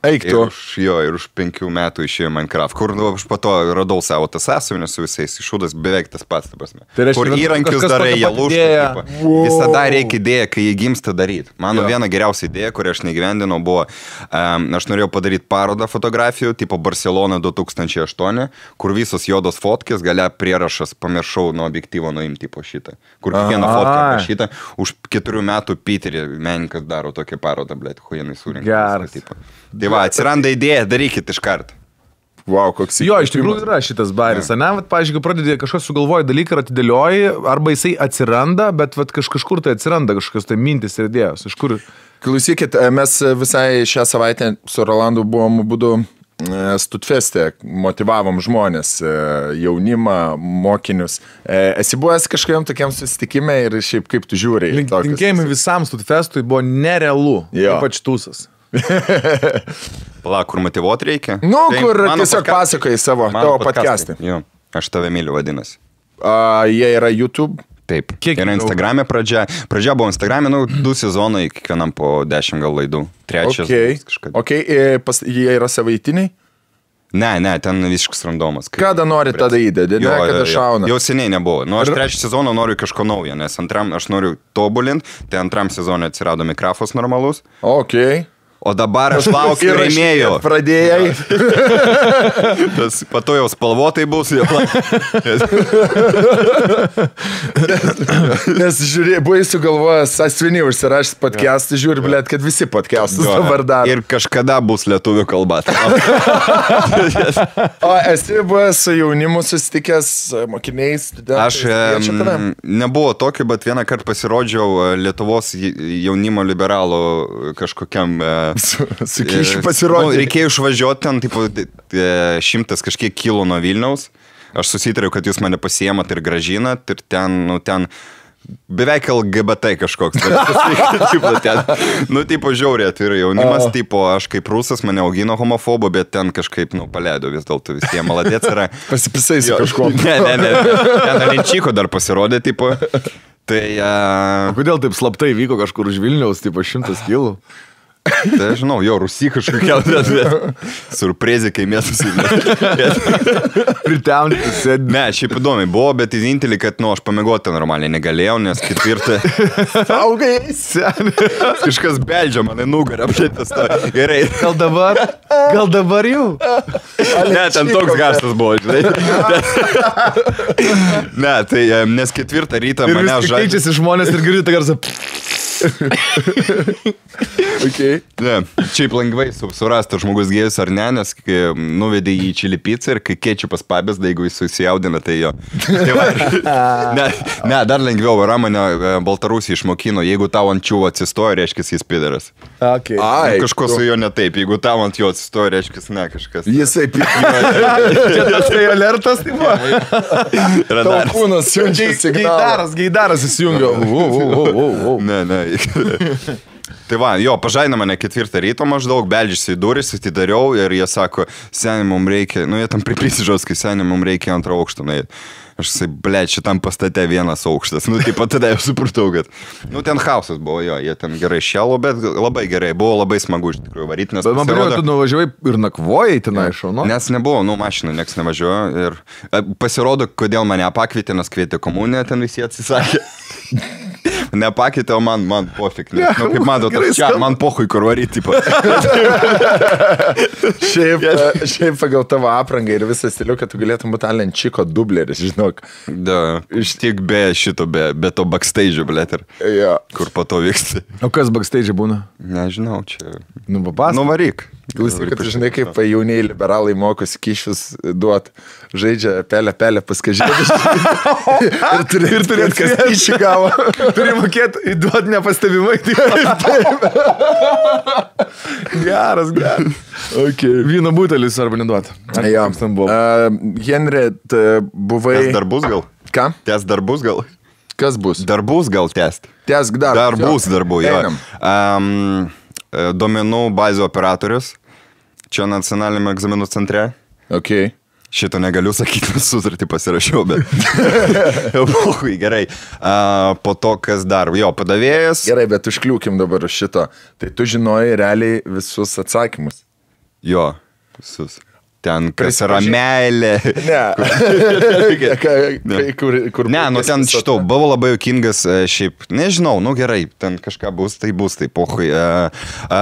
Eik tu. Ir už 5 metų išėjo Minecraft, kur aš po to radau savo tas sąsiuvinės su visais iššūdas, beveik tas pats, ta prasme. Kur įrankius darai, jie lūžta. Visada reikia idėją, kai jie gimsta daryti. Mano viena geriausia idėja, kurią aš negyvendinau, buvo, aš norėjau padaryti parodą fotografijų, tipo Barcelona 2008, kur visos juodos fotkės, galia prierašas, pamiršau nuo objektyvo nuimti po šitą. Kur kiekvieną fotkę pašytą, už 4 metų Piterį menininkas daro tokią parodą, blėt, huijanai surinka. Tai va, atsiranda idėja, darykit iš karto. Wow, koks įkvėpimas. Jo, iš tikrųjų yra šitas baris, ne? Vat, pavyzdžiui, kai pradedi kažkas sugalvoja dalyką ir atidėlioji, arba jisai atsiranda, bet vat, kažkur tai atsiranda kažkokios tai mintis ir idėjos. Iš kur? Klausykit, mes visai šią savaitę su Rolandu buvom būdu Studfeste, motivavom žmonės, jaunimą, mokinius. Esi buvęs kažkokiam tokiam susitikime ir šiaip kaip tu žiūri? Linkėjimai visam Studfestui buvo nerealu, ypač tūsas. Pala, kur motyvuoti reikia? Nu, tai kur tiesiog pasakoji savo, tavo podcast'ai. Jo, aš tave myliu vadinasi. Jie yra YouTube? Taip. Kiek yra Instagram'e pradžia? Pradžia buvo Instagram'e, 2 sezonai, kiekvienam po 10 gal laidų. 3 kažkada. Ok, jie yra savaitiniai? Ne, ten visiškas randomas. Kada nori tada įdėdė, ne, kada šauna? Jau seniai nebuvo. Nu, aš 3 sezoną noriu kažko naujo, nes antram aš noriu tobulinti, tai antram sezonui atsirado mikrofas normalus. Ok. O dabar aš laukiu rėmėjų. Pradėjai. Tas pato jau spalvotai bus. Nes žiūrėjai, buvai sugalvojęs sąsvinį užsirašęs podcast'ą, žiūri, blėt, kad visi podcast'us dabar daro. Ir kažkada bus lietuvių kalba. O esi buvęs su jaunimu susitikęs mokiniais? Aš nebuvo tokiu, bet vieną kartą pasirodžiau Lietuvos jaunimo liberalų kažkokiam... Su kyšiu pasirodė. Reikėjo išvažiuoti ten, tipo, 100 kažkiek kilų nuo Vilniaus. Aš susitariau, kad jūs mane pasiemat ir gražinat. Ir ten beveik LGBT kažkoks. Tipo, žiauriai, tai yra jaunimas, tipo, aš kaip rusas mane augino homofobo, bet ten kažkaip, paleido vis dėlto visiems. Maladėts yra. Pasipisai su kažkuo. Ne. Ten Alenčiko dar pasirodė, tipo. Tai... O kodėl taip slaptai vyko kažkur už Vilniaus, tipo, 100 kilų? Tai aš žinau, jo, Rusy kažkokia, surprizė, kai mes Priteauninti sėdė. Ne, šiaip įdomiai buvo, bet vienintelį, kad, aš pamiegoti normaliai negalėjau, nes 4... Saugai, seni. Kažkas beldžia mane nugarą, apšėtas to. Gerai. Gal dabar jau? Ne, ten toks garsas buvo, žinai. Ne, tai, nes 4 rytą mane žaidžia. Ir vis keičiasi žmonės ir girdite garsą. Okay. Ne, šiaip lengvai surasti žmogus gėjus ar ne, nes kai nuvedė jį į čili pizzą ir kai kečupas pabėsda, jeigu jis susijaudina, tai jo. Tai va, ne, dar lengviau, yra mane Baltarusija išmokino, jeigu tau ant čiūvo atsistoja, reiškia jis pidaras. Okay. Ai, Kažko su juo ne taip, jeigu tau ant jo atsistoja, reiškia ne kažkas. Jisai Čia tas tai alertas, tai va. tavo kūnas siunčia signalą. Geidaras įsijungia. Ne. Tai va, jo, pažaina mane 4 ryto maždaug, beldžiasi į duris, atidariau ir jie sako, seniai mums reikia, jie tam priprisižaus, kai seniai mums reikia 2 aukštą. Aš sakau, blėt, šitam pastate 1 aukštas. Taip pat tada jau supratau, kad, ten hausas buvo, jo, jie ten gerai šėlo, bet labai gerai, buvo labai smagu iš tikrųjų varyti, nes... Bet man pasirodo, tu nuvažiavai ir nakvojai tenai šauno? Nes nebuvo, mašinų nieks nevažiuojo ir pasirodo, kodėl mane pakvietė, nes kvietė komuniją, ten visi atsisakė. Nepakėtė, o man pofik. Kaip matot, man pohui kur varyti. Šiaip pagal tavo aprangą ir visą stilių, kad tu galėtum būti Alenčiko dubleris, žinok. Da, tik be šito, be to backstage'o, blėt, Ja. kur po to vyksta. O kas backstage būna? Nežinau, čia... Papas? Nuvaryk. Klausyk, kad žinai, kaip jauniai liberalai mokosi kyšius duot, žaidžia pelę paskažėdus. ir turi kas kyšį gavo. Turi mokėti įduoti nepastebimai. Geras. Okay. Vyno butelis arba neduoti. Ja. Henry, buvai... Tęs darbus gal? Ką? Tęs darbus gal? Kas bus? Darbus gal tęst? Tęsk darbus. Darbų, jo. Duomenų bazių operatorius. Čia nacionaliniame egzaminų centre. Okay. Šito negaliu sakyti, nes sutartį pasirašiau, bet... Gerai. Po to, kas dar? Jo, padavėjas. Gerai, bet užkliūkim dabar šito. Tai tu žinojai realiai visus atsakymus. Jo, visus. Ten, kas yra meilė. Ten šitau, buvo labai juokingas, šiaip, nežinau, gerai, ten kažką bus, tai pohui.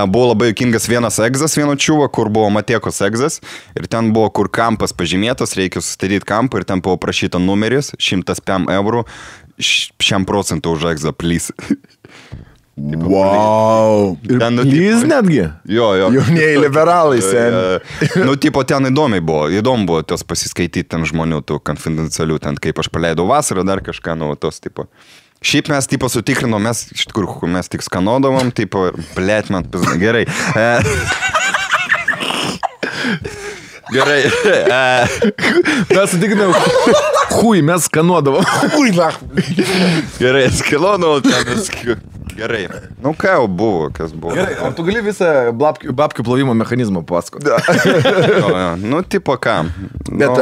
Buvo labai juokingas vienas egzas, vieno čiuvo, kur buvo Matiekos egzas, ir ten buvo, kur kampas pažymėtas, reikia sustatyti kampą, ir ten buvo prašyta numeris, 105 eurų, 100% už egzą, please. Wow. Jis netgi? Jo. Jaunieji liberalai, sen. Ten įdomu buvo tos pasiskaityti ten žmonių, tų konfidencialių, ten kaip aš paleidau vasarą, dar kažką, tos tipo. Šiaip mes sutikrinom, mes iš tikrųjų, mes tik skanodavom, blėt, man pizna, gerai. Gerai. Mes sutikrinom, mes skanuodavom. Gerai, skanuodavom, ten gerai. Ką jau buvo, kas buvo. Gerai, ar tu gali visą babkių plovimo mechanizmą pasakoti? Tipo ką. Bet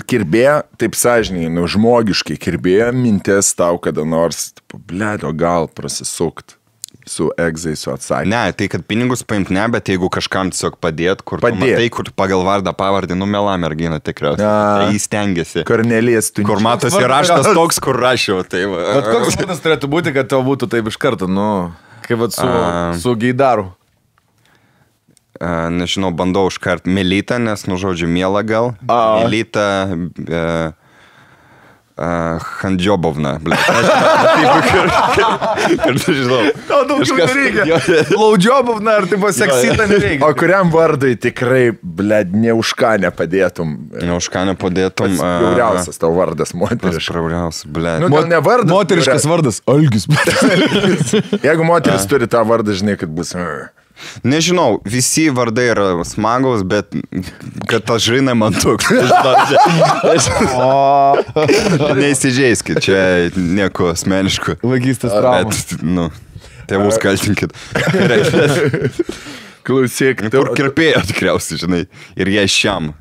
kirbėjo, taip sąžininkai, žmogiškai kirbėjo mintis tau kada nors, blėdo, gal prasisukt su egzai, su atsakymu. Ne, tai kad pinigus paimt ne, bet jeigu kažkam tiesiog padėt, kur matai, kur pagal vardą pavardį, mela mergina tikriausiai. Tai jis stengiasi. Kornelijas tu. Kur matosi raštas toks, kur rašiau. Bet koks būdas turėtų būti, kad tau būtų taip iš karto, kaip su geidaru? Nežinau, bandau užkart Melita, nes, žodžiu, miela gal. Melita... Handžiobovna, blė. Žinau. Daugiau nereikia. Laudžiobovna ar tipo seksita nereikia. O kuriam vardui tikrai, blė, ne už ką nepadėtum? Ne už ką nepadėtum. Bjauriausias tavo vardas, moteriškas. Bjauriausias, blė. Ne vardas. Moteriškas vardas. Algis. Jeigu moteris turi tą vardą, žinai, kad bus... Nežinau, visi vardai yra smagus, bet kad aš žinai man toks. Neįsižeiskit, čia nieko asmeniško. Vagystės trauma. Bet, tėvus kaltinkit. Klausyk. Kur kirpėjo tikriausiai, žinai, ir jie šiam.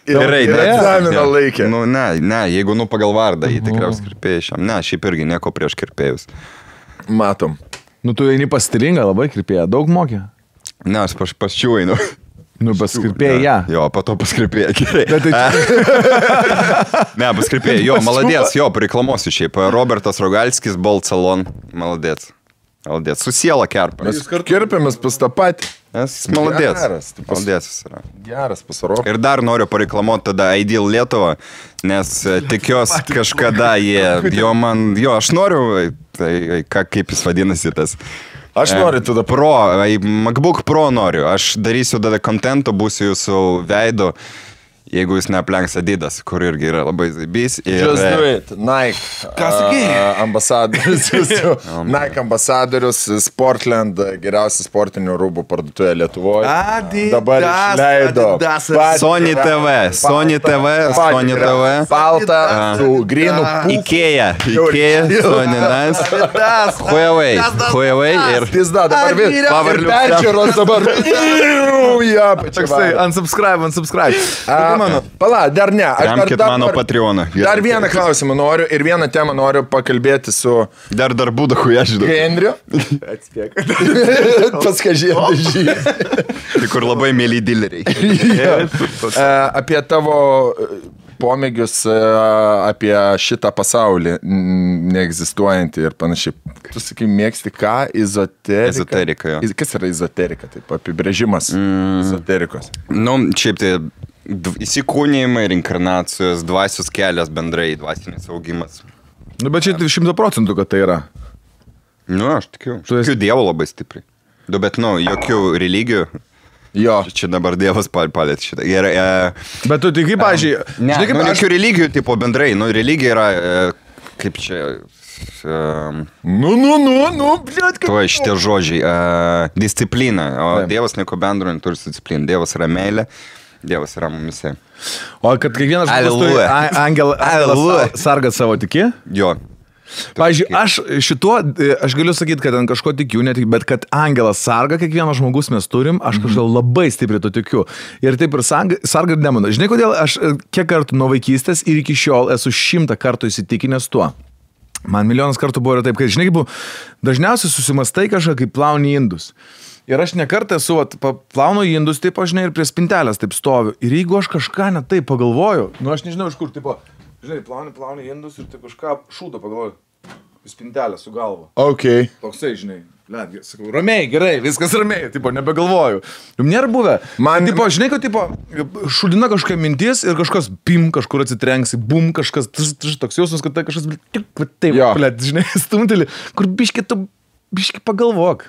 Gerai, egzaminą laikė. Ne, jeigu pagal vardą, jį tikriausiai kirpėjo šiam. Ne, šiaip irgi nieko prieš kirpėjus. Matom. Tu eini pas stilingą, labai kirpėją, daug mokė? Ne, aš pas čių einu. Pas kirpėją, ja. Jo, po to pas kirpėją, gerai. Ne, pas kirpėją, jo, maladės, jo, pareiklamosiu šiaip. Robertas Rogalskis, Bolt Salon, maladės. Maladės, su siela kerpa. Mes kirpėmės pas tą patį. Maladės. Maladės jis yra. Geras pasaro. Ir dar noriu pareklamuoti tada Ideal Lietuvą, nes tikiuosi kažkada aš noriu Tai kaip jis vadinasi tas? Aš noriu tada Pro, MacBook Pro noriu. Aš darysiu tada kontento, būsiu jūsų veido. Jeigu jis neaplenks Adidas, kur irgi yra labai zaibys. Just do it. Nike. Ką sakai? Ambasadorius. Nike ambasadorius, Sportland, geriausia sportinių rūbų parduotuvė Lietuvoje. Adidas. Dabar išleido. Sony TV. Balta su grinu. Ikea, Sony Nas. Huawei ir... Pizda, dabar ir peržiūros dabar. Toksai, unsubscribe. Pala, dar ne. Remkit mano Patreoną. Dar vieną klausimą noriu ir vieną temą noriu pakalbėti su... Dar būdachu, aš žinau. Henriu. Atspėk. Paskažėti. Tai kur labai mėly dileriai. Apie tavo pomėgius, apie šitą pasaulį neegzistuojantį ir panašiai. Tu sakai, mėgsti ką? Ezoterika, jo. Kas yra ezoterika? Taip, apibrėžimas ezoterikos. Šiaip tai įsikūnijimai, reinkarnacijos, dvasios kelias bendrai, dvasinis augimas. Bet čia 100%, kad tai yra. Aš tikiu. Tikiu Dievo labai stipriai. Bet, jokių religijų. Jo. Čia dabar Dievas palėt šitą. Bet tu tik, pavyzdžiui... Jokių religijų, tipo, bendrai. Religija yra, kaip čia... Bliat, Tuo šitie žodžiai. Disciplina. O Dievas nieko bendro neturi su disciplina. Dievas yra meilė. Dievas yra mumise. O kad kiekvienas žmogus turi angelą sargą savo tiki? Jo. Pavyzdžiui, aš galiu sakyti, kad ant kažko tikiu, bet kad angelas sarga kiekvienas žmogus mes turim, aš kažkaip labai stipriai to tikiu. Ir taip ir sarga ir demona. Žinai, kodėl aš kiek kartų nuo vaikystės ir iki šiol esu 100 kartų įsitikinęs tuo. Man milijonas kartų buvo ir taip, kad, žinai, dažniausiai susimastai kažką, kaip plauni indus. Ir aš nekartą esu, plaunu indus, taip, žinai, ir prie spintelės taip stoviu. Ir jeigu aš kažką ne taip pagalvoju, aš nežinau iš kur, tipo, žinai, plauni indus ir taip kažką šūdo pagalvoju. Spintelę su galva. Ok. Toksai, žinai, sakau, ramiai, gerai, viskas ramiai, tipo, nebegalvoju. Jums nėra buvę. Man, tipo, žinai, kad, tipo, šūdina kažkokia mintis ir kažkas, pim, kažkur atsitrenksi, bum, kažkas, toks jausmas, kad tai kažkas, taip, žinai, stumtelį, kur biški pagalvok.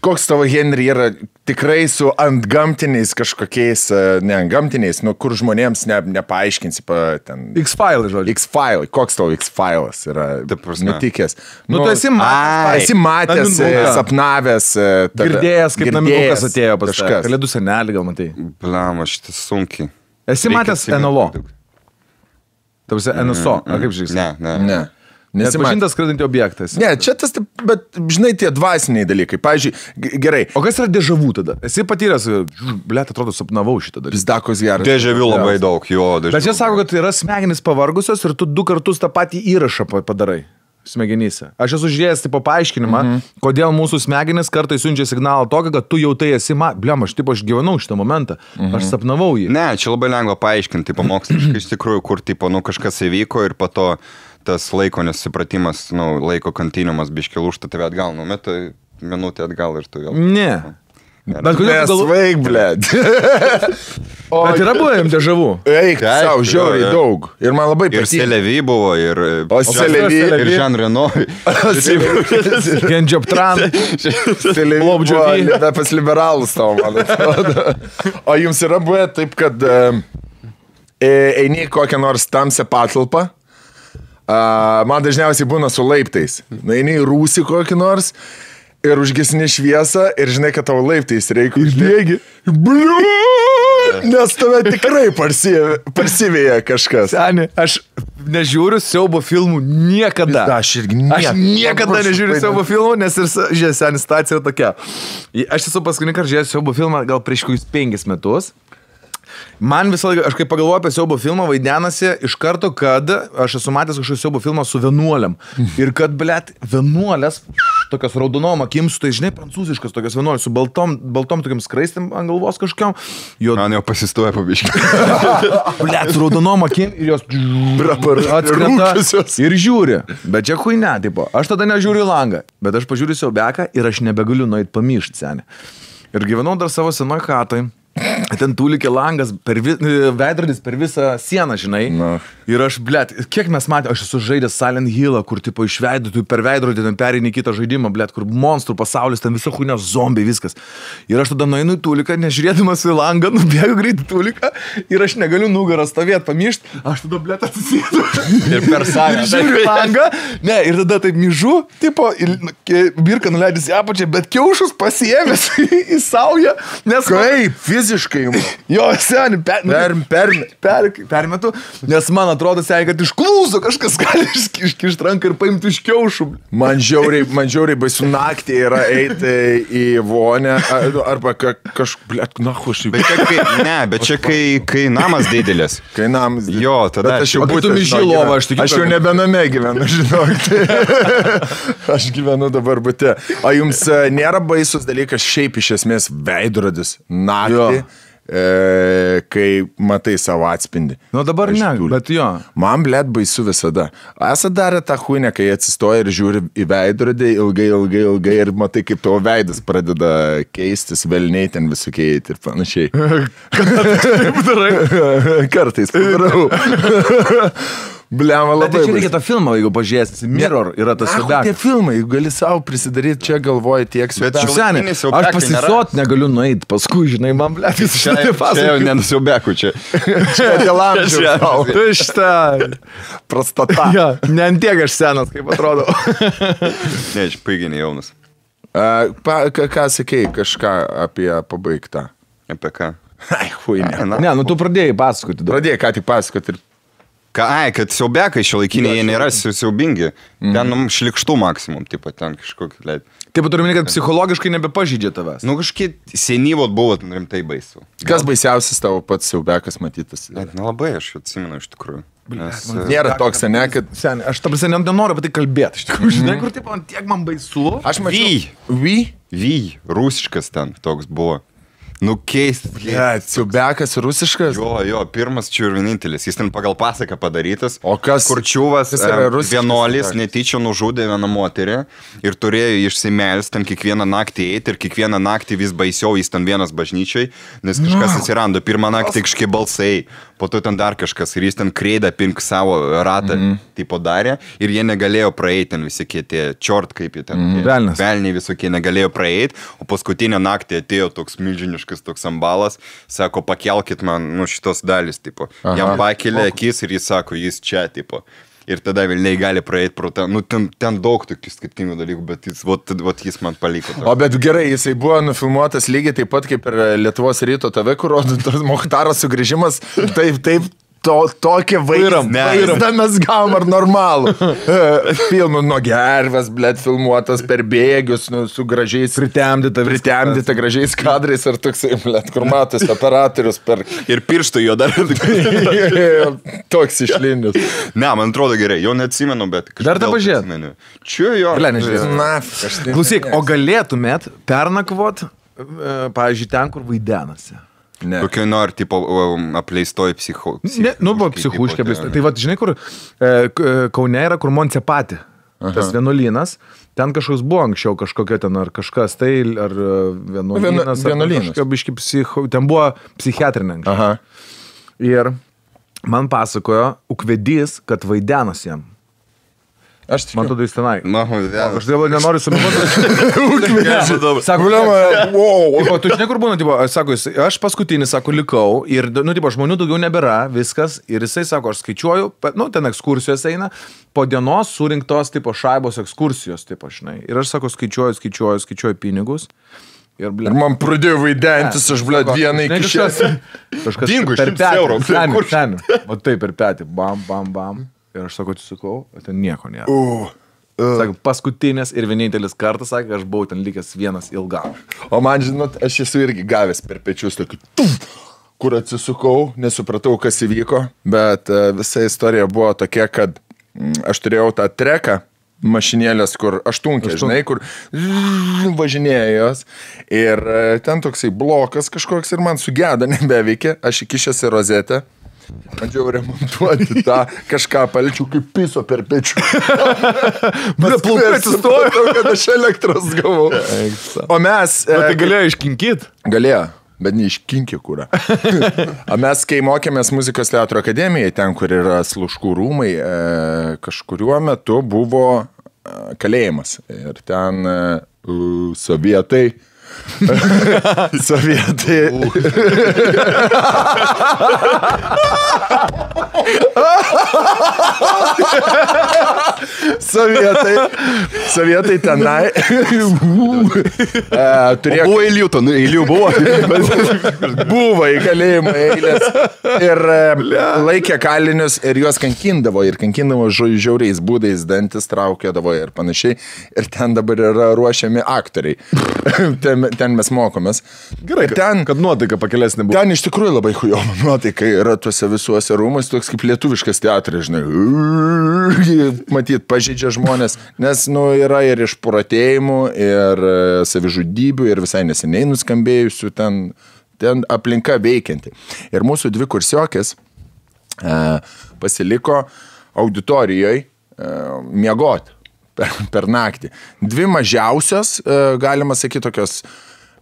Koks tavo Henry yra tikrai su antgamtiniais kažkokiais, ne antgamtiniais, kur žmonėms nepaaiškinsi ten... X-File, žodžiu. X-File. Koks tavo X-File'as yra nutikęs? Tu esi matęs, sapnavęs, girdėjęs, kaip naminukas atėjo pas kažką. Kalėdų senelį gal matai. Blama, šitas sunkiai. Esi matęs NLO? Tavasi NSO, ar kaip žiūrėsi? Ne. Nepažintas skraidantis objektas. Ne, čia tas, bet žinai, tie dvasiniai dalykai. Pavyzdžiui, gerai. O kas yra dežavų tada? Esi patyręs, blėt, atrodo, sapnavau šitą dalyką. Pizdakos geras. Dežavių labai daug, jo. Bet čia sako, kad yra smegenys pavargusios ir tu 2 kartus tą patį įrašą padarai smegenyse. Aš esu žiūrėjęs tipo paaiškinimą, kodėl mūsų smegenys kartais siunčia signalą tokį, kad tu jau tai esi, aš gyvenau šitą momentą, aš sapnavau jį. Ne, čia labai lengva paaiškinti, pamoksliškai iš tikrųjų, kur tipo, kažkas įvyko ir po to tas laiko nesupratimas, laiko kontinuumas biški lūžta tave atgal, metai minutę atgal ir tu vėl. Ne. Bet kodėl tu Nesvaig, blėd. Bet yra buvę jums dežavų? Eik, savo, žiauriai daug. Ir man labai patiko. Ir Selevi buvo, ir... O Selevi. Ir Jean Reno. Gen Jobtran. Selevi buvo pas liberalus tavo, man atrodo. O jums yra buvę taip, kad eini kokią nors tamsią patalpą. Man dažniausiai būna su laiptais. Eini į rūsį kokį nors ir užgesini šviesą ir žinai, kad tavo laiptais reikia užbėgi. Nes tave tikrai parsivėja kažkas. Seni, aš nežiūriu siaubo filmų niekada. Aš irgi niekada. Aš niekada nežiūriu siaubo filmų, nes ir seni situacija tokia. Aš esu paskutinį kartą žiūrėjęs siaubo filmą gal prieš 5 metus. Man visą laiką, aš kai pagalvoju apie siaubo filmą, vaidenasi iš karto, kad aš esu matęs kažkokį siaubo filmą su vienuoliam. Ir kad, blėt, vienuolės, tokios raudonom akim, su tai, žinai, prancūziškas tokios vienuolės, su baltom tokiam skraistėm ant galvos kažkiam. Man jau pasistoja pabiškai. Blėt, su raudonom akim ir jos atskrenta ir žiūri. Bet čia huine, tipo, aš tada nežiūriu į langą, bet aš pažiūriu siaubeką ir aš nebegaliu nueit pamyšt, seni. Ir gyvenau dar savo senoj chatoj. ten tūlikė langas, veidrodis per visą sieną, žinai. Ir aš, blėt, kiek mes matėme, aš esu žaidęs Silent Hill'ą, kur tipo iš veidų, tu per veidrodį ten pereini kitą žaidimą, blėt, kur monstrų pasaulis, ten viso huinio zombiai, viskas. Ir aš tada nueinu į tūliką, nežiūrėdamas į langą, nubėgu greit į tūliką ir aš negaliu nugarą stovėti, pamišti, aš tada, blėt, atsisėdu. Ir per salę. Ir žiūriu langą, ne, ir tada taip myžu, tipo, birka nuleidys į apačią, bet kiaušus pasiėmęs į saują, nes... Kaip, fiziškai jums? Jo, seniai, permetu, nes man atrodo, seniai, kad iš klūzo kažkas gali iškišti ranką ir paimti iš kiaušų. Man žiauriai baisu naktį yra eiti į vonę, arba blėt, Bet čia kai namas didelis. Kai namas didelis. Jo, tada aš jau būtų mižylovą, aš jau nebename gyvenu, žinok. Aš gyvenu dabar bute. O jums nėra baisus dalykas šiaip iš esmės veidrodis naktį? Kai matai savo atspindį. Nu dabar ne, bet jo. Man, blėt, baisu visada. Esat darę tą huinę, kai atsistoja ir žiūri į veidrodį ilgai ir matai, kaip tavo veidas pradeda keistis, velniai ten visokiai ir panašiai. Kartais padarau. Bliama labai. Bet čia reikia tą filmą, jeigu pažiūrėsi. Mirror yra tas Siaubiakas. Tie filmai, gali savo prisidaryti, čia galvoji tiek Siaubiakas. Aš pasisot negaliu nueiti, paskui, žinai, man blėt, jis čia jau nenusiaubekų čia. Čia dėl amžiaus. Tušta. Prostata. Ja, ne antiek aš senas, kaip atrodo. Ne, aš paiginį jaunas. Ką sakei, kažką apie pabaigtą? Apie ką? Ai, huinė. Ne, nu tu pradėjai pasakoti. Pradėjai ką tik pasakoti ir... Kad siaubekai šiuolaikiniai, jie nėra siaubingi. Ten šlikštų maksimum, tipo, ten kažkokį leid. Taip, turime, kad psichologiškai nebepažydžia tavęs. Nu, kažkiek senyvot buvo rimtai baisu. Kas baisiausias tavo pats siaubekas matytas? Nelabai, aš atsimenu iš tikrųjų. Nėra toks, ne, kad... Sen, aš ta prasme nenoriu apie tai kalbėti, iš tikrųjų, žinai, kur tipo, tiek man baisu. Aš mačiau... Rusiškas ten toks buvo. Nu, keistas. Siaubekas rusiškas? Jo, pirmas čia ir vienintelis. Jis ten pagal pasaką padarytas. O kas? Kurčiuvas vienuolis netyčia nužudė vieną moterį ir turėjo išsimelsti ten kiekvieną naktį eiti ir kiekvieną naktį vis baisiau jis ten vienas bažnyčiai, nes kažkas atsirando. Pirmą naktį kažkiek balsai, po to ten dar kažkas ir jis ten kreidą pink savo ratą tipo darė ir jie negalėjo praeiti ten visi tie čiort, kaip jie ten. Velniai visokie negalėjo praeiti, o paskutinę naktį atėjo toks milžiniškas toks ambalas, sako, pakelkit man, šitos dalis, tipo. Jam pakelė akis ir jis sako, jis čia, tipo. Ir tada vilniai gali praeiti pro ten, ten daug tokių skirtingų dalykų, bet jis man paliko. O bet gerai, jisai buvo nufilmuotas lygiai taip pat kaip ir Lietuvos ryto TV, kur Mochtaro sugrįžimas, taip. Tokie vaizdą mes gavom ar normalų. Filmų nuo gervės, blėt, filmuotas per bėgius, su gražiais... Pritemdyta gražiais kadrais ar toksai, blėt, kur matas operatorius per... Ir pirštų jo dar. Toks išlindęs. Ne, man atrodo gerai, jo neatsimenu, bet... Dar tą pažiūrėt? Čia jo. Klausyk, o galėtumėt pernakvot, pavyzdžiui, ten, kur vaidenasi? Kokio nori, tipo, apleistoj psichuškė. Psichuškė apleistoj. Tai va, žinai, kur Kaune yra, kur Moncepati, tas vienuolynas, ten kažkoks buvo anksčiau, kažkokia ten, ar kažkas tai, ar vienuolynas, ten buvo psichiatrinė anksčiau. Ir man pasakojo ukvedys, kad vaidenas jam. Man tada jis tenai. Aš dėl nenoriu suminuoti. Sako, o tu žinai, kur būna, sako, aš paskutinį, sako, likau ir, žmonių daugiau nebėra, viskas. Ir jisai, sako, aš skaičiuoju, ten ekskursijos eina, po dienos surinktos, šaibos ekskursijos, žinai. Ir aš, sako, skaičiuoju pinigus. Ir man pradėjo vaidentis, aš, blėt, vieną iki šias. Dingo, 100 eurų. Seniai. O taip, per petį. Bam. Ir aš, sako, atsisukau, ten nieko nėra. Sako, paskutinės ir vienintelis kartas, sakė, aš buvau ten likęs vienas ilgam. O man, žinot, aš esu irgi gavęs per pečius tokį, kur atsisukau, nesupratau, kas įvyko, bet visa istorija buvo tokia, kad aš turėjau tą treką, mašinėlės, kur aštunkė, žinai, kur važinėjo jos ir ten toksai blokas kažkoks ir man sugeda, nebeveikia, aš įkišęs į rozetę. Bandžiau remontuoti tą kažką palčių kaip piso per pečių. Bet plaukai atsistojo, kad aš elektros gavau. O mes... Tai galėjo iškinkit? Galėjo. bet neiškinkė kūrą. O mes, kai mokėmės muzikos teatro akademijoje, ten, kur yra Sluškų rūmai, kažkuriuo metu buvo kalėjimas. Ir ten sovietai. Sovietai tenai turėjo... Buvo eilių buvo. Buvo į kalėjimą eilės. Ir laikė kalinius ir juos kankindavo. Ir kankindavo žiauriais būdais, dantis traukėdavo ir panašiai. Ir ten dabar yra ruošiami aktoriai. Ten mes mokomės. Gerai, ten, kad nuotaika pakelesnė buvo. Ten iš tikrųjų labai chujoma nuotaika yra tuose visuose rūmuose, toks kaip lietuviškas teatras, žinai. Matyt, pažeidžia žmonės, nes yra ir išpuratėjimų, ir savižudybių, ir visai neseniai nuskambėjusių ten aplinka veikianti. Ir mūsų dvi kursiokės pasiliko auditorijoje miegoti per naktį. Dvi mažiausios, galima sakyti, tokios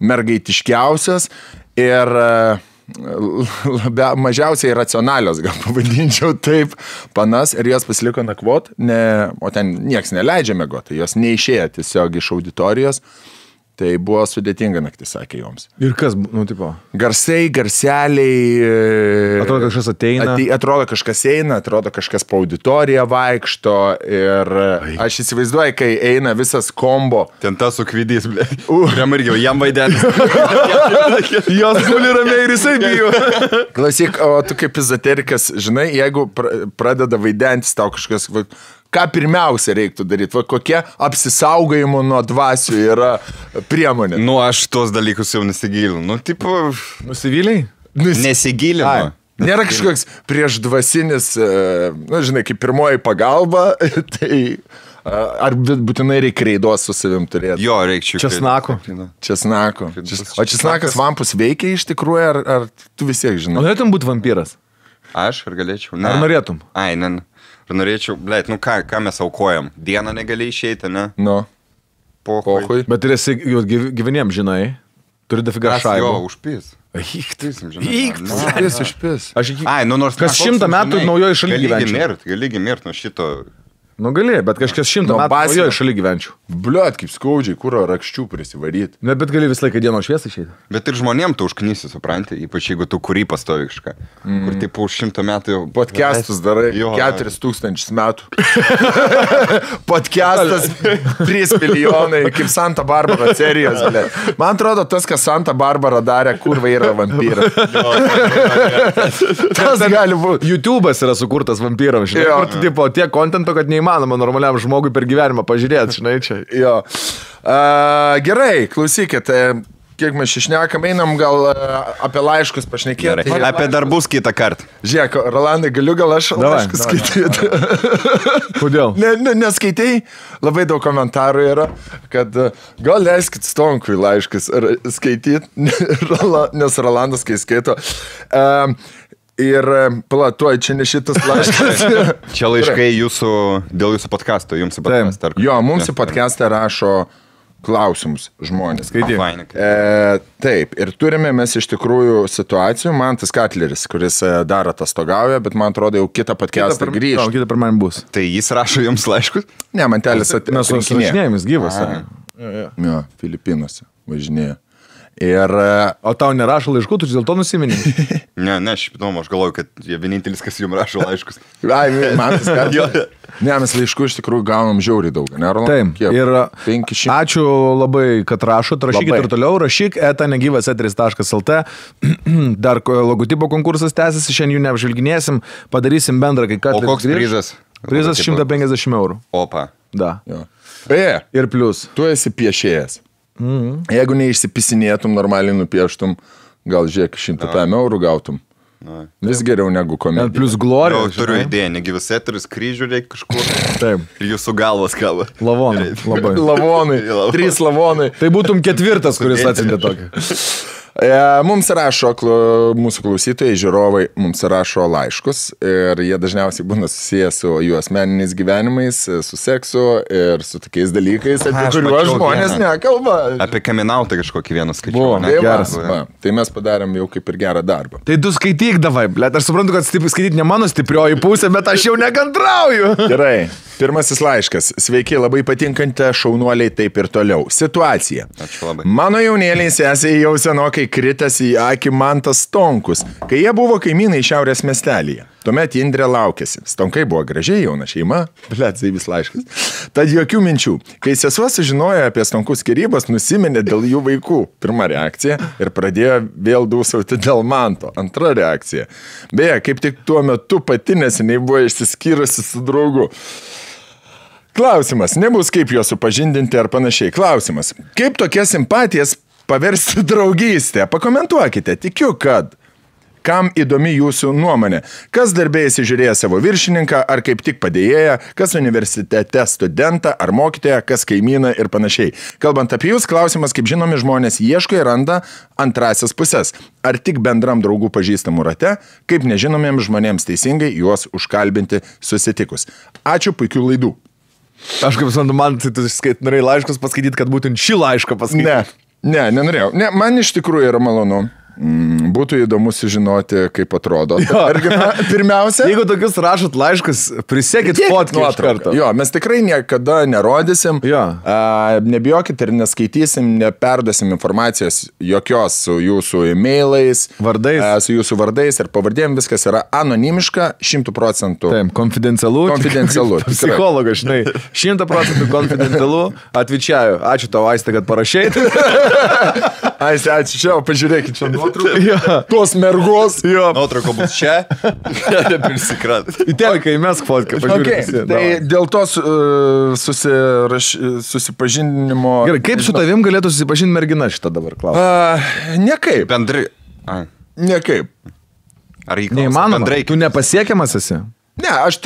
mergaitiškiausios ir mažiausiai racionalios, gal pavadinčiau taip, panas, ir jos pasiliko nakvot, o ten nieks neleidžia miegoti, jos neišėjo tiesiog iš auditorijos. Tai buvo sudėtinga naktis, sakė joms. Ir kas, tipo? Garseliai. Atrodo, kažkas ateina. Atrodo, kažkas eina, atrodo, kažkas po auditoriją vaikšto. Ir aš įsivaizduoju, kai eina visas kombo. Ten tas sukvidys, ble. Irgi, jam vaidelis. Jos guli ramiai ir jisai bijo. Klausyk, o tu kaip ezoterikas, žinai, jeigu pradeda vaidentis tau kažkas... Ką pirmiausia reiktų daryti? Kokie apsisaugojimo nuo dvasių yra priemonė? Aš tuos dalykus jau nesigilinu. Tipo... Nusivyliai? Nesigilinu. Nėra kažkoks priešdvasinis, žinai, kaip pirmoji pagalba, tai... Ar būtinai reikia reidos su savim turėti? Jo, reikia česnako. O česnakas vampus veikia iš tikrųjų, ar tu vis tiek žinai? Norėtum būti vampyras? Aš ar galėčiau? Ar norėtum? Ai, ne. Ar norėčiau, blėt, ką mes aukojam? Dieną negali išeiti, ne? Pohui. Bet ir esi gyveniem, žinai, turi dafiga šaibų. Jo, užpys. Užpys. Ai, nors... Kas 100 metų naujoje šalyje gyvenčiau. Gali mirt nuo šito... Gali, bet kažkas 100 metų naujoje šalyje gyvenčiau. Bliuot, kaip skaudžiai, kuro rakščių prisivaryti. Ne, bet gali visą laiką dienos šviesą išeiti. Bet ir žmonėm tu užknysi, supranti, ypač jeigu tu kurį pastovi kažką. Kur taip už 100 metų jau... Podcastus darai, 4000 metų. Podcastas 3 milijonai, kaip Santa Barbara serijos. Man atrodo, tas, kas Santa Barbara darė, kurva yra vampyras. Tas gali būti. YouTube'as yra sukurtas vampyram, žinai. Kur tu tipo tiek kontento, kad neįmanoma normaliam žmogui per gyvenimą pažiūrėti, žinai, čia. Jo. Gerai, klausykit, kiek mes išnekam, einam gal apie laiškus pašnekėti. Apie darbus kitą kartą. Žiūrėk, Rolandai, galiu gal aš laiškus skaityti? Kodėl? Neskaitai, labai daug komentarų yra, kad gal leiskit Stonkui laiškus skaityti, nes Rolandas, kai skaito... Ir platuoj, čia ne šitas laiškas. Čia laiškai dėl jūsų podcasto, jums į podcastą. Jo, mums į podcastą rašo klausimus žmonės. Skaityk. Taip, ir turime mes iš tikrųjų situacijų. Mantas Katleris, kuris dar atostogauja, bet man atrodo jau kitą podcastą grįžta. Kitą per man bus. Tai jis rašo jums laiškus? Ne, Mantelis atrinkinėja. Mes važinėjomės gyvas. Jo, Filipinuose važinėja. Ir... O tau nerašo laiškų, tu dėl to nusiminė? Ne, aš galvoju, kad jie vienintelis, kas jums rašo laiškus. Ai, man tas kartas. Ne, mes laiškų iš tikrųjų gaunam žiauriai daug, ne, Roland? Taip, ir 500. Ačiū labai, kad rašot, rašykit ir toliau, rašyk @negyvasetris.lt. Dar logotipo konkursas tęsiasi, šiandien jų neapžvelginėsim, padarysim bendrą, kai ką. O koks prizas? Prizas 150 €. Opa. Da. Beje, ir plius. Tu esi piešėjas. Jeigu neišsipisinėtum, normaliai nupieštum, gal žiūrėk, 100 € gautum. Vis geriau negu komedija. Plus glorija. Turiu idėją, Negyvasetris, kryžių reikia kažkur. Taip. Ir jūsų galvas kaba. Lavonai. Labai. Lavonai. 3 lavonai. Tai būtum 4, kuris atsintė tokį. Mums rašo mūsų klausytojai, žiūrovai, mums rašo laiškus ir jie dažniausiai būna susiję su jų asmeniniais gyvenimais, su seksu ir su tokiais dalykais, apie kuriuos žmonės nekalba. Apie kaminautą kažkokį vieną skaičių. Tai mes padarėm jau kaip ir gerą darbą. Tai tu skaityk davai, blėt, aš suprantu, kad skaityti ne mano stiprioji pusė, bet aš jau nekantrauju. Gerai. Pirmasis laiškas. Sveiki, labai patinkante šaunuoliai, taip ir toliau. Situacija. Ačiū labai. Mano jaunėliai sesiai jau senokai kritęs į akį Mantas Stonkus, kai jie buvo kaimynai šiaurės miestelyje. Tuomet Indrė laukėsi. Stonkai buvo gražiai jauna šeima. Blet, tai vis laiškas. Tad jokių minčių. Kai sesuo sužinojo apie Stonkų skyrybas, nusiminė dėl jų vaikų. Pirma reakcija. Ir pradėjo vėl dūsauti dėl Manto. Antra reakcija. Beje, kaip tik tuo metu pati neseniai buvo išsiskyrusi su draugu. Klausimas, nebus kaip juos supažindinti ar panašiai. Klausimas, kaip tokias simpatijas paversti draugystę? Pakomentuokite, tikiu, kad. Kam įdomi jūsų nuomonė? Kas darbė įsižiūrėja savo viršininką, ar kaip tik padėjėja, kas universitete studentą, ar mokytoją, kas kaimyną ir panašiai. Kalbant apie jūs, klausimas, kaip žinomi žmonės ieško ir randa antrasias pusės. Ar tik bendram draugų pažįstamų rate, kaip nežinomiems žmonėms teisingai juos užkalbinti susitikus. Ačiū, puikių laidų. Aš kaip suprantu, man tai tu norėjai laiškus paskaityti, kad būtent šį laišką paskaityti. Nenorėjau. Ne, man iš tikrųjų yra malonu. Būtų įdomu sužinoti, kaip atrodo. Pirmiausia, jeigu tokius rašot laiškus, prisekit fotkę iš karto. Jo, mes tikrai niekada nerodysim, nebijokit ir neskaitysim, neperduosim informacijos jokios su jūsų e-mailais, su jūsų vardais ir pavardėm, viskas yra anonimiška, 100%. Taip, konfidencialu. Psichologas, žinai, 100% konfidencialu. Atvičiaju. Ačiū tau, Aiste, kad parašei. Aiste, ačiū čia, pažiūrėkit čia. Tos mergos. Nuotrauko bus čia. Prisikrat. Į teleką įmesk fotkę. Tai dėl to susipažinimo. Gerai, kaip su tavim galėtų susipažinti mergina šitą dabar klausimą? Nekaip. Bendrai. Nekaip. Ar neįmanoma? Tu nepasiekiamas esi? Ne, aš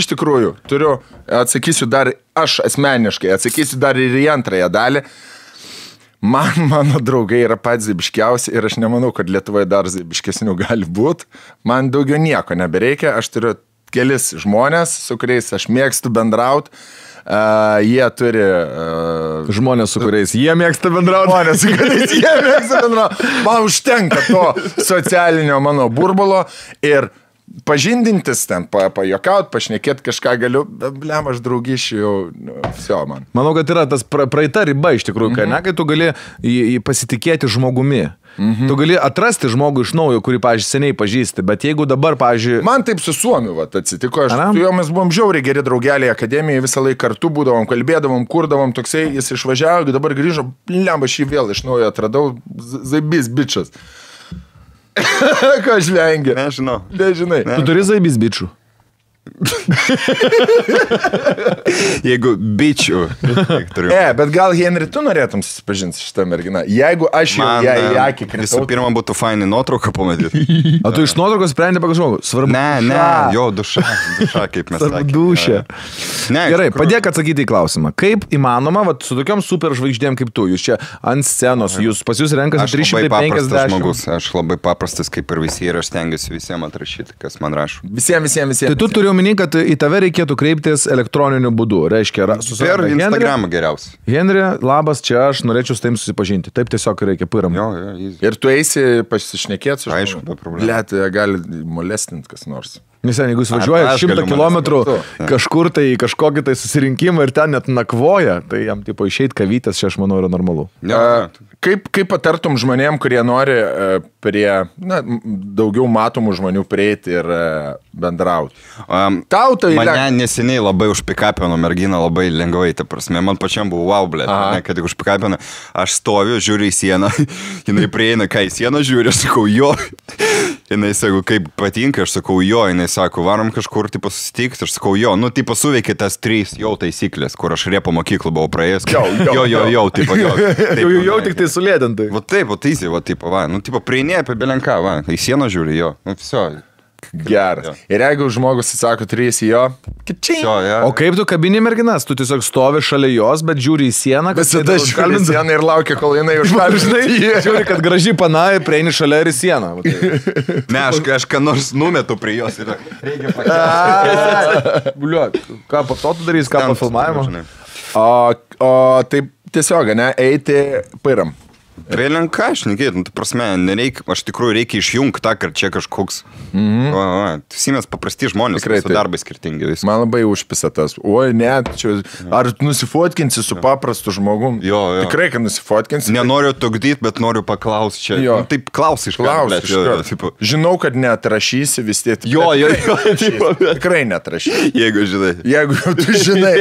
iš tikrųjų turiu, aš asmeniškai atsakysiu dar ir į antrąją dalį. Mano draugai yra patys zaibiškiausi ir aš nemanau, kad Lietuvoje dar zaibiškesnių gali būti. Man daugiau nieko nebereikia, aš turiu kelis žmonės, su kuriais aš mėgstu bendrauti. Jie turi... Žmonės, su kuriais jie mėgsta bendrauti. Žmonės, su kuriais jie mėgsta bendrauti. Man užtenka to socialinio mano burbulo ir pažindintis ten, pajokaut, pašnekėt kažką galiu, blem, aš draugyšiu jau, viso man. Manau, kad yra tas praeita riba iš tikrųjų, kai tu gali pasitikėti žmogumi. Tu gali atrasti žmogų iš naujo, kurį, pavyzdžiui, seniai pažįsti, bet jeigu dabar, pavyzdžiui... Man taip su Suomiu atsitiko, su juo mes buvom žiauriai geri draugeliai akademijoje, visą laiką kartu būdavom, kalbėdavom, kurdavom, toksai, jis išvažiavo, dabar grįžo, blem, aš jį vėl iš naujo atradau, zaibys bičas. Ką aš vengiu? Nežinau. Nežinai. Tu turi zaibys bičių? Jeigu bičių. Bet gal, Henri, tu norėtum susipažinti šitą merginą? Jeigu aš jau ją į akį kritau... Visų pirma, būtų fainai nuotrauką pamatyti. O tu iš nuotraukos sprendė pagal žmogų? Svarbu. Ne, jo, duša, kaip mes sakėme. Dušė. Gerai, padėk atsakyti į klausimą. Kaip įmanoma, su tokiom super žvaigždėm kaip tu, jūs čia ant scenos, pas jūs renkasi 350 žmogus. Aš labai paprastas kaip ir visi ir aš stengiuosi visiems atrašyti, kas man rašo. Visiems. Tai tu turi omeny, kad į tave reikėtų kreiptis elektroniniu būdu. Reiškia, per Instagramą geriausiai. Henri, labas, čia aš norėčiau su tavim susipažinti. Taip tiesiog reikia piram. Ir tu eisi pasišnekėti su aišku, be problemų. Blet, gali molestinti kas nors. Nesen, jeigu jis važiuoja 100 kilometrų kažkur tai kažkokį tai susirinkimą ir ten net nakvoja, tai jam tipo išeit kavytės, čia aš manau yra normalu. Kaip patartum žmonėm, kurie nori prie daugiau matomų žmonių prieiti ir bendrauti? Mane neseniai labai užpikapino merginą labai lengvai, ta prasme, man pačiam buvo wow, blėt, kad tik užpikapino, aš stoviu, žiūriu į sieną, jinai prieina, ką į sieną žiūri, aš sakau jo, jinai sako, kaip patinka, aš sakau jo, jinai sako, varom kažkur, tipo, susitikti, aš sakau jo, tipo, suveikė tas 3 jau taisyklės, kur aš Rėpo mokyklą buvau praėjęs, jo, tipo, jau tik tai sulėdintai. Va taip, tipo, tipo, prieini apie belenką, į sieną žiūri, jo, viso. Geras. Ir jeigu žmogus sako 3 jo, O kaip tu kabini merginas? Tu tiesiog stovi šalia jos, bet žiūri į sieną, kad tada žiūri į sieną ir laukia, kol jinai užkalbinai. Žiūri, kad gražiai panai, prieini šalia ir į sieną. Ne, aš ką nors numetu prie jos ir reikia pakeisti. Bliuot, ką po to tu darys, ką po filmavimo? O taip tiesiog, ne, eiti pairam. Vėlinka, aš nekėt, prasme, nereikia, aš tikrųjų reikia išjungti tą, kad čia kažkoks, mes paprasti žmonės, su darbai skirtingi vis. Man labai užpisa tas, oi, net, čia, ar nusifotkinsi su paprastu žmogum? Jo. Tikrai, kad nusifotkinsi. Nenoriu tugdyti, bet noriu paklausti čia. Jo. Taip, klaus iš karto. Žinau, kad neatrašysi vis tiek. Jo. Tikrai neatrašysi. Jeigu žinai. Jeigu tu žinai,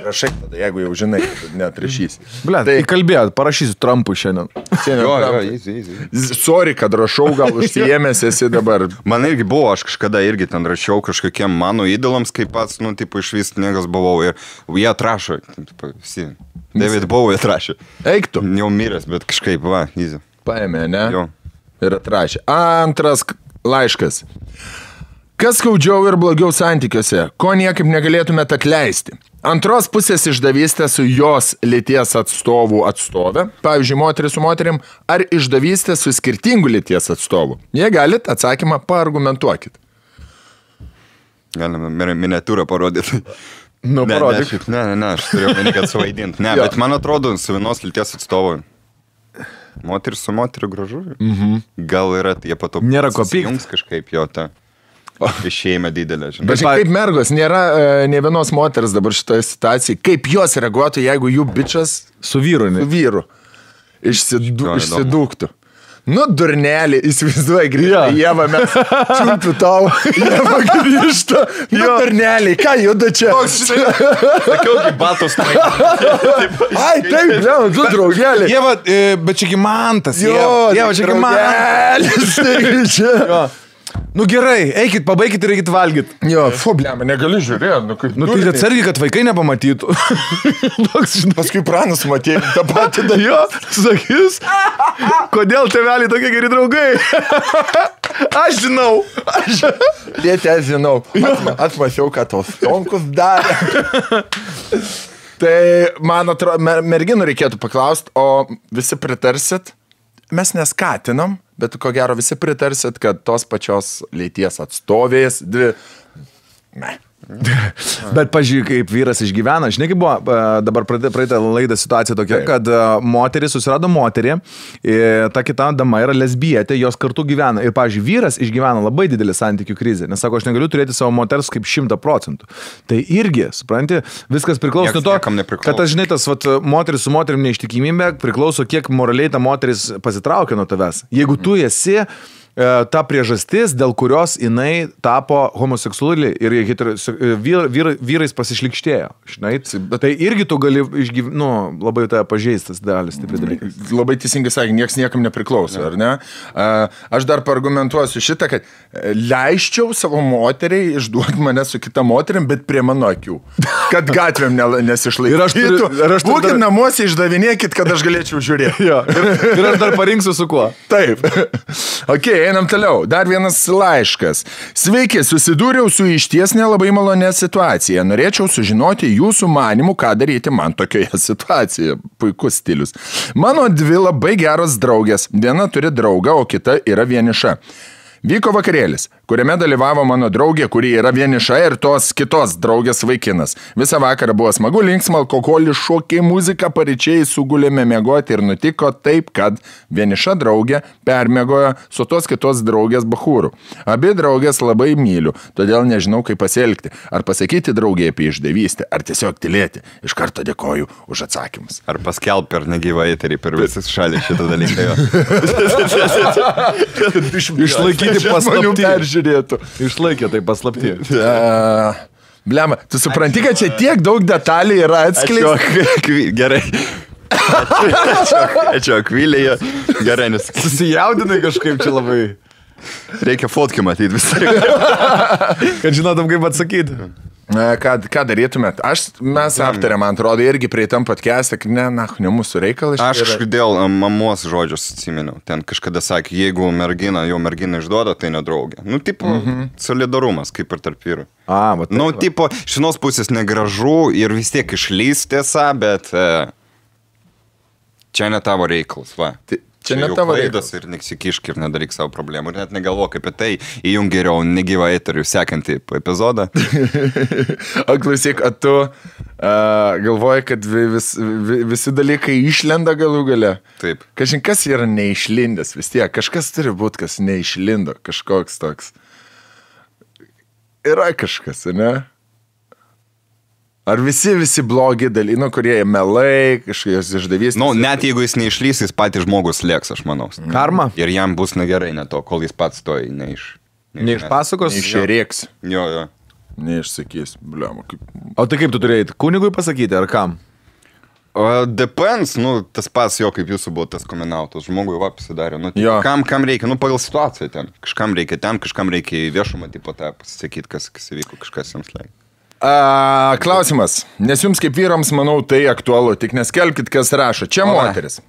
rašai tada, jeigu jau žinai, kad neatrašysi. Ble, tai kalbėjot, parašysiu Trumpui šiandien. Easy. Sorry, kad rašau, gal užsiėmęs esi dabar. Man irgi buvo, aš kažkada irgi ten rašiau kažkokiem mano įdėlams, kaip pats, iš vis niekas buvau ir jie atrašo, visi. David Bowie atrašė. Eik tu. Jau miręs, bet kažkaip, easy. Paėmė, ne? Jo. Ir atrašė. Antras laiškas. Kas skaudžiau ir blogiau santykiuose, ko niekaip negalėtumėte atleisti? Antros pusės išdavystė su jos lyties atstovė, pavyzdžiui, moteris su moterim, ar išdavystė su skirtingų lyties atstovų? Jei galit, atsakymą paargumentuokit. Galime miniatūrą parodyti. Parodyk. Ne, aš turėjau meni, kad suvaidinti. Ne, bet man atrodo, su vienos lyties atstovui. Moteris su moteriu gražu. Gal yra, jie pato nėra ko pykt. Jums kažkaip jo ta išėjimą didelę, žinai. Bet kaip mergos, nėra ne vienos moters dabar šitoje situacijoje. Kaip jos reaguotų, jeigu jų bičas su vyru išsidūktų? Nu, durnelį, įsivaizduoji, grįžta Ieva, mes čiūpiu tau, Ieva grįžta. Nu, durnelį, ką juda čia? Sakiau, kaip batos Ai, taip, tu draugelį. Ieva, bet čiagi Mantas. Ieva, čiagi Mantas. Nu gerai, eikit, pabaikit ir eikit valgyt. Jo, blema, negaliu žiūrėti. Nu tai atsargiai, kad vaikai nepamatytų. Paskui pranas matėjai tą patį jo, sakys, kodėl tėveliai tokie geri draugai? Aš žinau. Tėtė, aš žinau. Atmačiau, kad tos tonkus darė. Tai, man atrodo, merginų reikėtų paklausti, o visi pritarsit? Mes neskatinam, bet ko gero visi pritarsit, kad tos pačios lyties atstovės dvi... Bet pažiūrėk, kaip vyras išgyvena. Žinai, kaip buvo dabar praeitą laidą situacija tokia, kad moteris susirado moterį, ta kita dama yra lesbietė, jos kartu gyvena. Ir, pažiūrėk, vyras išgyvena labai didelį santykių krizę, nes sako, aš negaliu turėti savo moters kaip 100%. Tai irgi, supranti, viskas priklauso nuo to, kad aš žinai, tas moteris su moterim neištikimybė priklauso, kiek moraliai ta moteris pasitraukia nuo tavęs. Jeigu tu esi ta priežastis, dėl kurios jinai tapo homoseksuali ir vyrais pasišlikštėjo. Žinai, tai irgi tu gali labai tai pažeistas dalis, taip dalykai. Labai teisingai sakė, nieks niekam nepriklauso, ar ne? Aš dar paargumentuosiu šitą, kad leiščiau savo moteriai išduoti mane su kita moterim, bet prie mano akių. Kad gatvėm nesišlaikytų. Būkit namuose, išdavinėkit, kad aš galėčiau žiūrėti. Ir aš dar parinksiu su kuo. Taip. Okay. Einam toliau. Dar vienas laiškas. Sveiki, susidūriau su išties nelabai malonė situacija. Norėčiau sužinoti jūsų manimų, ką daryti man tokioje situacijoje. Puikus stilius. Mano dvi labai geros draugės. Viena turi draugą, o kita yra vieniša. Vyko vakarėlis, kuriame dalyvavo mano draugė, kuri yra vieniša ir tos kitos draugės vaikinas. Visą vakarą buvo smagu, linksma, alkoholis, šokiai, muzika, paryčiai, sugulėme miegoti ir nutiko taip, kad vieniša draugė permiegojo su tos kitos draugės bachūrų. Abi draugės labai myliu, todėl nežinau, kaip pasielgti. Ar pasakyti draugė apie išdavystę, ar tiesiog tylėti. Iš karto dėkoju už atsakymus. Ar paskelb per negyvą eterį per visas šalį šitą dalyką. Išlaikyti paslaptį. Išlaikė tai paslaptį. Blema, tu supranti, kad čia tiek daug detalių yra atskleista. Gerai. Ačiū, Akvilėje. Gerai, nes... Susijaudinai kažkaip čia labai. Reikia fotkę matyti visą. Kad žinotum, kaip atsakyti. Ką darytumėt? Mes aptarėm, man atrodo, irgi prie tam podcast'e, kad ne mūsų reikalas. Aš dėl mamos žodžios atsiminiau. Ten kažkada sakė, jeigu jo mergina išduoda, tai nedraugė. Nu, tipo, solidarumas, kaip ir tarp vyrų. Nu, tipo, iš vienos pusės negražu ir vis tiek išlys tiesa, bet čia ne tavo reikalas, va. Čia ne tavo reidas ir nesikišk ir nedaryk savo problemų. Ir net negalvok apie tai, įjung geriau negyvą eterių sekantį epizodą. O klausyk, tu galvoji, kad visi dalykai išlenda galų gale? Taip. Kažin, kas yra neišlindęs vis tiek? Kažkas turi būti, kas neišlindo. Kažkoks toks. Yra kažkas, ne? Ar visi blogi dalykai, kurie melai, kažkokios išdavys? Nu, net jeigu jis neišlys, jis patys žmogus lieks, aš manau. Karma. Ir jam bus negerai ne to, kol jis pats to neišpasakos. Neišrėks. Jo. Neišsakys. Bliama, kaip... O tai kaip tu turėjai? Kunigui pasakyti, ar kam? Depends, tas pats jo, kaip jūsų buvo tas komenautas. Žmogui pasidarė. Kam reikia? Pagal situaciją ten. Kažkam reikia ten, kažkam reikia į viešumą, tipo tą pasisakyti, kas įvyko, kažkas jiems leikia. Klausimas, nes jums kaip vyrams, manau, tai aktualu, tik neskelbkit, kas rašo. Čia moteris.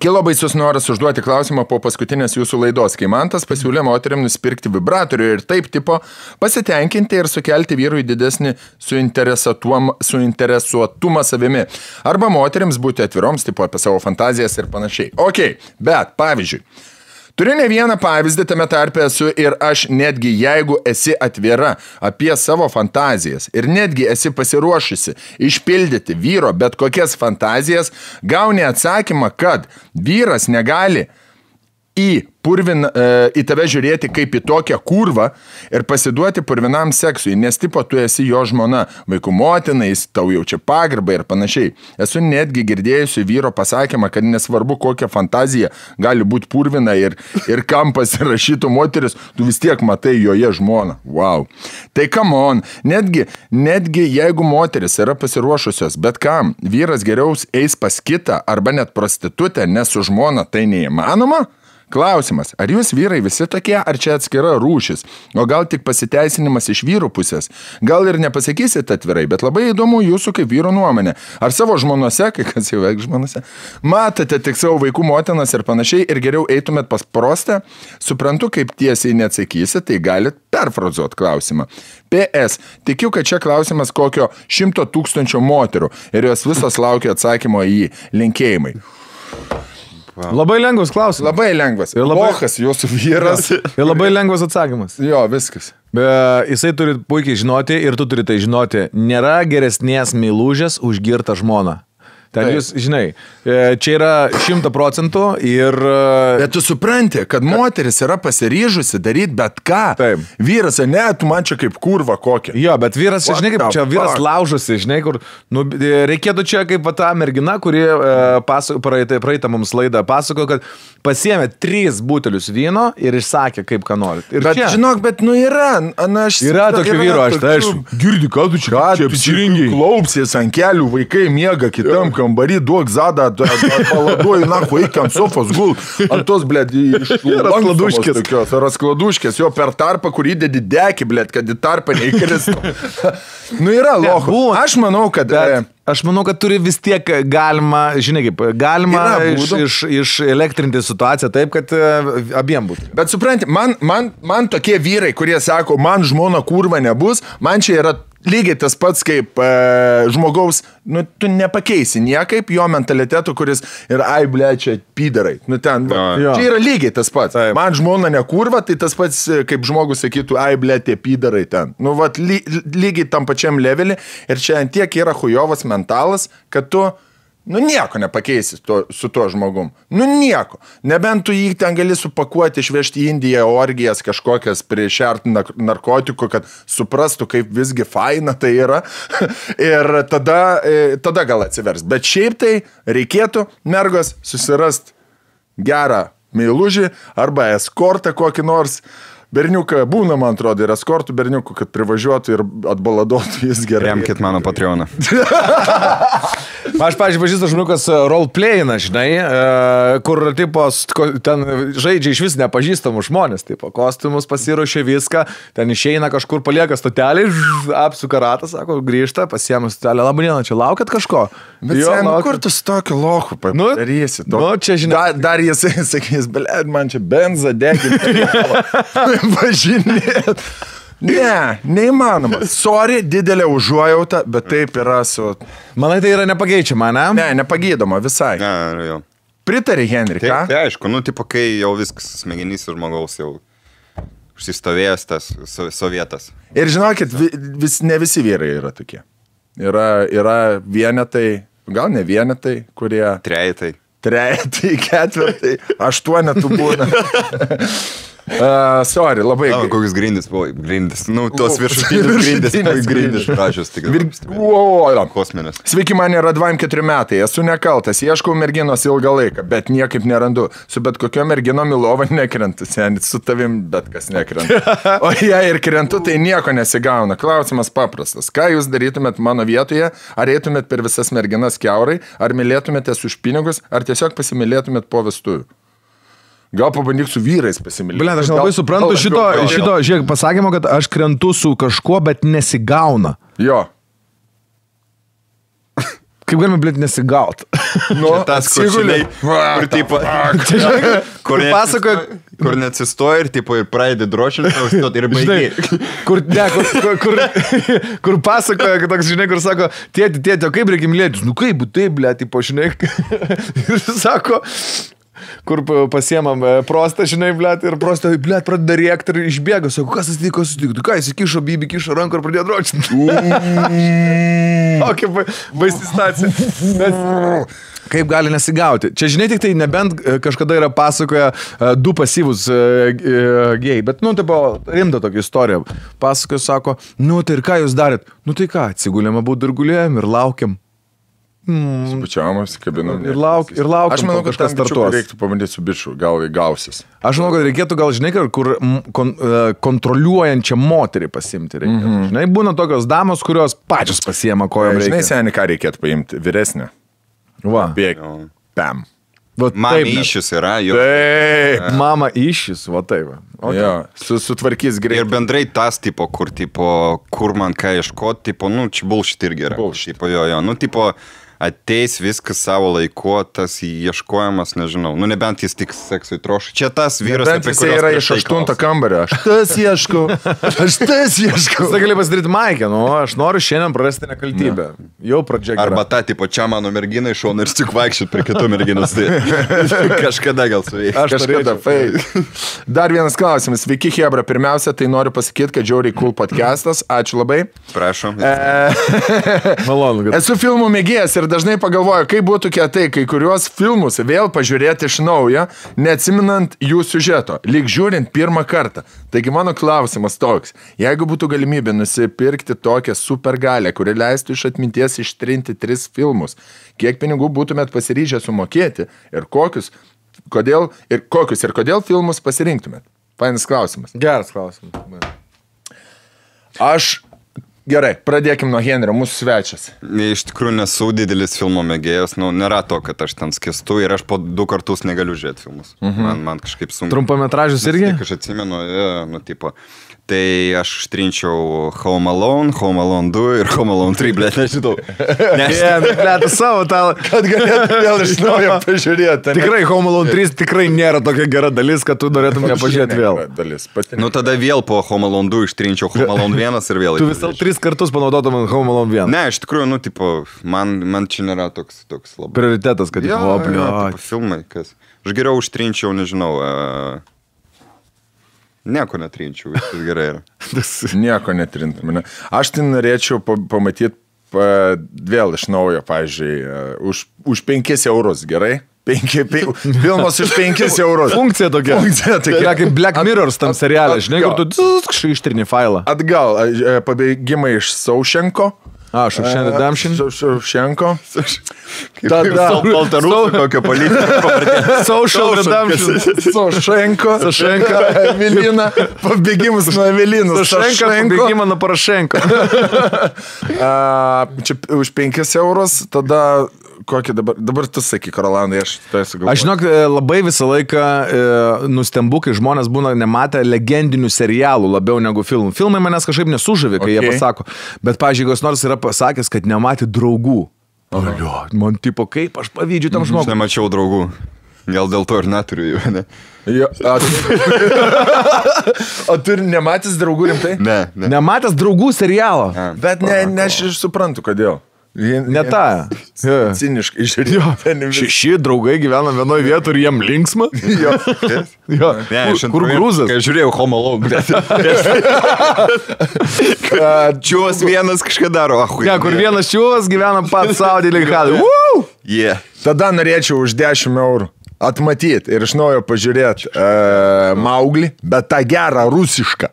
Kilo baisus noras užduoti klausimą po paskutinės jūsų laidos, kai Mantas pasiūlė moteriam nusipirkti vibratorių ir taip tipo pasitenkinti ir sukelti vyrui didesnį suinteresuotumą savimi. Arba moteriams būti atviroms, tipo apie savo fantazijas ir panašiai. Ok, bet pavyzdžiui, turiu ne vieną pavyzdį, tame tarpe esu ir aš, netgi jeigu esi atvira apie savo fantazijas ir netgi esi pasiruošusi išpildyti vyro bet kokias fantazijas, gauni atsakymą, kad vyras negali į tave žiūrėti kaip į tokią kurvą ir pasiduoti purvinam seksui, nes tipo tu esi jo žmona, vaikų motina, jis tau jaučia pagarbą ir panašiai. Esu netgi girdėjusi vyro pasakymą, kad nesvarbu kokia fantazija gali būti purvina ir kam pasirašytų moteris, tu vis tiek matai joje žmoną. Wow. Tai come on, netgi jeigu moteris yra pasiruošusios, bet kam, vyras geriau eis pas kitą arba net prostitutę, nes su žmona tai neįmanoma? Klausimas, ar jūs vyrai visi tokie, ar čia atskira rūšis, o gal tik pasiteisinimas iš vyrų pusės? Gal ir nepasakysit atvirai, bet labai įdomu jūsų kaip vyro nuomonė. Ar savo žmonose, kai kas jau veik žmonose, matote tik savo vaikų motinas ir panašiai ir geriau eitumėt pas prostę? Suprantu, kaip tiesiai neatsakysit, tai galit perfrazuot klausimą. PS, tikiu, kad čia klausimas kokio 100 000 moterų ir jos visos laukia atsakymo į jį. Linkėjimai. Wow. Labai lengvas klausimas. Labai lengvas. Ir lochas jūsų vyras. Ir labai lengvas atsakymas. Jo, viskas. Jisai turi puikiai žinoti ir tu turi tai žinoti. Nėra geresnės meilužės už girtą žmoną. Ten jūs, žinai, čia yra 100% ir... Bet tu supranti, kad moteris yra pasiryžusi daryti bet ką. Taip. Vyras, ne, tu man čia kaip kurva kokia. Jo, bet vyras, žinai, kaip čia vyras laužosi, žinai, kur... reikėtų čia kaip ta mergina, kuri praeitą mums laidą pasako, kad pasiėmė 3 butelius vyno ir išsakė, kaip ką nori. Bet čia. Žinok, bet yra... Yra tokių vyro, aš girdi, ką tu čia apsirengiai. Klaupsies ant kelių, vaikai miega kitam kambarį, duok zadą, paladuoju, eik ant sofos gul, ant tos, blėd, raskladuškės, jo per tarpą, kur įdedi dekį, blėd, kad į tarpą neįkristų. Yra lochų. Aš manau, kad turi vis tiek galima, žinai kaip, galima išelektrinti situaciją taip, kad abiem būtų. Bet supranti, man tokie vyrai, kurie sako, man žmona kurva nebus, man čia yra lygiai tas pats kaip žmogaus, tu nepakeisi niekaip jo mentalitetų, kuris yra, čia pydarai. Čia yra lygiai tas pats. Taip. Man žmona nekurva, tai tas pats kaip žmogus sakytų, tie pydarai ten. Lygiai tam pačiam levelį ir čia antiek yra hujovas mentalas, kad tu nieko nepakeisi su tuo žmogum. Nieko. Nebent tu jį ten gali supakuoti, išvežti į Indiją orgijas kažkokias priešert narkotikų, kad suprastų, kaip visgi faina tai yra. Ir tada gal atsivers. Bet šiaip tai reikėtų mergos susirast gerą meilužį arba eskortą kokį nors, berniuką būna, man atrodo, ir eskortų berniukų, kad privažiuotų ir atbaladotų jis gerai. Remkit mano Patreoną. Aš, pavyzdžiui, pažįstu žmogus roleplayina, žinai, kur, tipo, ten žaidžia iš vis nepažįstamų žmonės, tipo, kostiumus pasiruošia viską, ten išeina kažkur, palieka stotelį, apsuka ratą, sako, grįžta, pasiema stotelę, labai diena, čia laukiat kažko? Bet kur tu su tokiu lochu padarysi? Čia, žinai. Dar jis sakys, blėd, man čia benzą deginti. Važinėt. Ne, neįmanoma. Sorry, didelė užuojauta, bet taip yra su... Manai, tai yra nepageičiama, ne? Ne, nepagydoma visai. Ne, jau. Pritari, Henri, ką? Tai aišku, nu, tipo, kai jau viskas smegenys žmogaus jau užsistovėjęs tas sovietas. Ir žinokit, ne visi vyrai yra tokie. Yra vienetai, gal ne vienetai, kurie... Trejetai, ketvirtai, 8 būna. Sorry, labai... Kokius grindis, nu, tos viršutinius grindis pražius, tik kosminės. Sveiki, man yra 24 metai, esu nekaltas, ieškau merginos ilgą laiką, bet niekaip nerandu. Su bet kokio mergino Milova nekrentu, senis, su tavim bet kas nekrenta. O jei ir krentu, tai nieko nesigauna. Klausimas paprastas. Ką jūs darytumėt mano vietoje? Ar eitumėt per visas merginas kiaurai? Ar mylėtumėtės už pinigus? Ar tiesiog pasimylėtumėt po vestuvių? Gal pabandyk su vyrais pasimylėti. Blet, aš labai suprantu šito, žiūrėk, pasakymo, kad aš krentu su kažkuo, bet nesigauna. Jo. Kaip galime, blet, nesigaut? Nu, tas, kur tipo, kur neatsistoja ir tipo ir pradedi drošinti, ir baigiai. Kur pasakoja, kad toks, žinai, kur sako, tėti, o kaip reikia mylėtis? Nu kaip, taip, blet, tipo, žinai. Ir sako... Kur pasiemam prostą, žinai, blėt, ir prostą, blėt, pradeda rėkti ir išbėga, sako, kas atsitiko, ką jis įkišo, Bibi kišo ranką ir pradėjo dročinti. O, kaip baisi stacija. Kaip gali nesigauti? Čia, žinai, tik tai nebent kažkada yra pasakoja 2 pasyvus gėjai, bet, nu, taip, rimta tokia istorija. Pasakoja, sako, nu, tai ir ką jūs darėt? Nu, tai ką, atsigulėm abu ir gulėjom ir laukiam. Spučiamas, kabinam. Ir laukiam, aš manau, kad kažkas startuos. Reiktų pabandyti su biču, gal gausis. Aš manau, kad reikėtų gal, žinai, kur kontroliuojančią moterį pasimti reikia. Žinai, būna tokios damos, kurios pačios pasiema kojom reikia. Žinai, seniai, ką reikėtų paimti? Vyresnę. Va. Bėg. Pam. Mama iššis yra, jo. Taip. Mama iššis, va taip. Okay. Jo, sutvarkys greitai. Ir bendrai tas, tipo, kur man ką ieškoti, tipo, nu, čia bullshit irgi yra. Bullshit. Tipo, jo, nu, tipo, ateis viskas savo laiku, tas ieškojimas, nežinau, nu, nebent jis tik seksui troška. Čia tas vyras, apie kurį yra iš 8 kambario. Aš tas ieškau. Tai gali pasidaryti Maikę, nu, aš noriu šiandien prarasti nekaltybę. Jau pradžia gera. Arba ta, tipo, čia mano mergina iš šono ir tik vaikščiot prie kitų merginos. Tai kažkada gal su jais. Kažkada, Dar vienas klausimas. Sveiki, Hebra. Pirmiausia, tai noriu pasakyti, kad žiauriai cool podcastas. Ačiū labai. Prašom. Malonu, kad... Esu filmų mėgėjas ir dažnai pagalvoju, kaip būtų kietai kai kuriuos filmus vėl pažiūrėti iš naujo, neatsiminant jų siužeto, lyg žiūrint pirmą kartą. Taigi mano klausimas toks, jeigu būtų galimybė nusipirkti tokią supergalę, kuri leistų iš atminties ištrinti 3 filmus, kiek pinigų būtumėt pasiryžę sumokėti ir kokius ir kodėl filmus pasirinktumėt? Fainas klausimas. Geras klausimas. Gerai, pradėkim nuo Henrio, mūsų svečias. Iš tikrųjų nesu didelis filmo mėgėjas, nu, nėra to, kad aš ten skęstu ir aš po 2 kartus negaliu žiūrėti filmus. Man kažkaip sunku. Trumpametražius irgi? Aš atsimenu, nu, tipo, tai aš ištrinčiau Home Alone 2 ir Home Alone 3, blėt, nežinau. Blėt, savo tą, kad galėtų vėl iš naujo pažiūrėti. Tikrai Home Alone 3 tikrai nėra tokia gera dalis, kad tu norėtum ją pažiūrėti vėl. Nu, tada vėl po Home Alone 2 ištrinčiau Home Alone 1 ir vėl. Tu visą 3 kartus panaudotum Home Alone 1. Ne, iš tikrųjų, nu, tipo, man čia nėra toks labai. Prioritetas, kad filmai, kas. Aš geriau užtrinčiau, nežinau, nieko netrinčiau, viskas gerai yra. Nieko netrintum. Aš tai norėčiau pamatyti vėl iš naujo, pavyzdžiui, už 5 eurus, gerai? Filmas iš 5 eurus. Funkcija tokia. Yra kaip Black Mirrors tam serialė, žinai, kur tu ištrini failą. Atgal, pabėgimai iš Saušenko, Shawshank Redemption. Ševčenko. Tada Baltarusų kokio politinio pavardė. Social Redemption. Šaušenko. Evelina. Pabėgimus nuo Evelinos. Pabėgimą nuo Porošenko. Čia už 5 eurus, tada kokį dabar tu sakyk, Rolandai, aš tai sugalvoju. Aš žinok, labai visą laiką nustembu, kai žmonės būna nematę legendinių serialų labiau negu filmų. Filmai manęs kažkaip nesužavė, kai jie pasako. Bet, pavyzdžiui, kas nors yra pasakęs, kad nematė draugų. Man tipo, kaip aš pavydžiu tam žmogui. Aš nemačiau draugų. Gal dėl to ir neturiu jų, ne? O tu nematęs draugų rimtai? Ne. Nematęs draugų serialo. Bet ne, aš išsuprantu, kodėl. Ne tą. Ciniškai žiūrėjau. 6 draugai gyvena vienoje vietoje ir jiem linksma. Jo. Kur grūzas? Kai žiūrėjau Home Alone. Čiūvas vienas kažką daro. Ne, kur vienas čiūvas gyvena pats savo dėlį. Tada norėčiau už 10 eurų atmatyti ir iš naujo pažiūrėti Mauglį, bet tą gerą rusišką.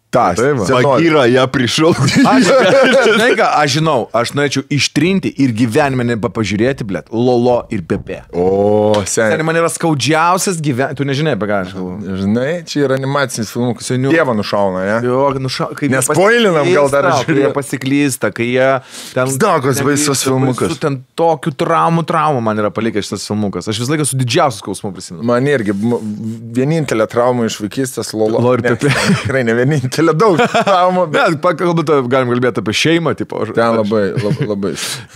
Bagyrą ją prišau. Aš žinau, aš norėčiau ištrinti ir gyvenime nepažiūrėti, blėt, Lolo ir Pepe. O, seniai. Man yra skaudžiausias gyvenimas. Tu nežinai, apie ką aš kalbu. Žinai, čia yra animacinis filmukas. Dievą nušauna, ne? Jo, nespoilinam gal dar žiūrėjau. Kai jie pasiklysta, kai jie... Zdagos baisus filmukas. Su ten tokių traumų man yra palikęs šitas filmukas. Aš vis laiką su didžiausiu skausmu prisimenu. Man irgi vienintelė trauma iš vaikystės Lolo ir Pepe. Tikrai ne vienintelė. Daug traumų, bet galim kalbėti apie šeimą, tipo. Ten labai.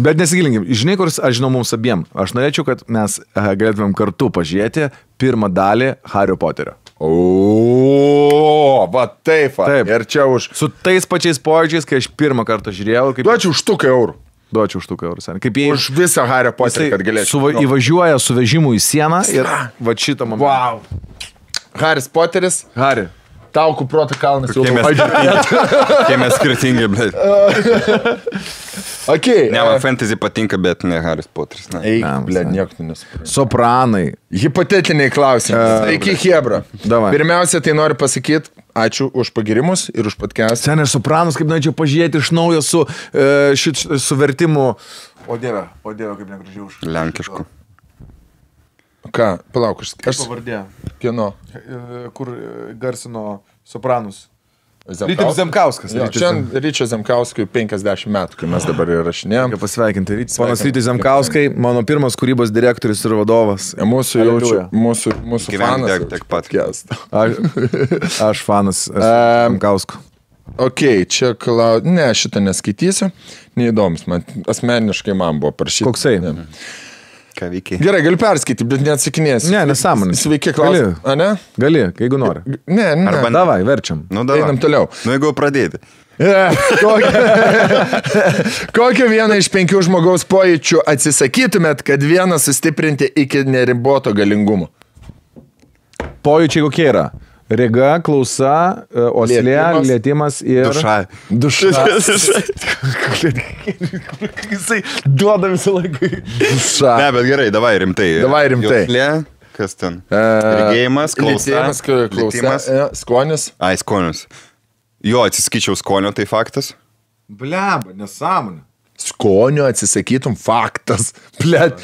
Bet nesigilinkim. Žinai, kur aš žinau mums abiem. Aš norėčiau, kad mes galėtumėm kartu pažiūrėti pirmą dalį Hario Poterio. O, va taip. Ir čia už... Su tais pačiais pojūčiais, kai aš pirmą kartą žiūrėjau. Duočiau už 100 eurų. Duočiau už 100 eurų. Kaip jie... Už visą Hario Poterį, kad galėčiau. Įvažiuoja su vežimu į sieną ir va šitą momentą. Wow. Haris Poteris. Hari. Taukų proto kalnas jau Kai mes skirtingi, bet... Okay. Ne, man fantasy patinka, bet ne Haris Poteris. Eik, blė, nieko nesuprantu. Sopranai. Hipotetiniai klausimai. Sveiki, Hebra. Davai. Pirmiausia, tai noriu pasakyti, ačiū už pagirimus ir už podcast. Sen, aš Sopranus, kaip norėčiau pažiūrėti iš naujo su vertimu. O dieve, kaip negražiai už. Lenkišku. Ką, palauk, aš... Pavardė. Kieno? Kur garsino Sopranus. Rytis Zemkauskas. Ryčio Zemkauskui 50 metų, kai mes dabar įrašinėjom. Pasveikinti Rytis. Ponas Rytis Zemkauskai, mano pirmas kūrybos direktorius ir vadovas. Mūsų fanas. Tiek pat. Aš fanas Zemkausko. Ok, čia ne, šitą neskaitysiu. Neįdomus, man asmeniškai man buvo parašyti. Koksai? Ką veikiai? Gerai, galiu perskaityti, bet neatsakinėsiu. Ne, nesąmonė. Sveiki, klausim. Gali, jeigu nori. Ne. Davai, verčiam. Einam toliau. Jeigu pradėti. Kokią vieną iš 5 žmogaus pojūčių atsisakytumėt, kad vieną sustiprinti iki neriboto galingumo? Pojūčiai kokie yra? Rega, klausa, oslė, lietimas ir... Duša. Jisai duoda visą laiką. Duša. Ne, bet gerai, davai rimtai. Joslė, kas ten? Regėjimas, klausa, lietimas. Skonis. Ai, skonis. Jo, atsisakyčiau skonio, tai faktas. Bleba, nesąmonė. Skonio atsisakytum, faktas. Blet.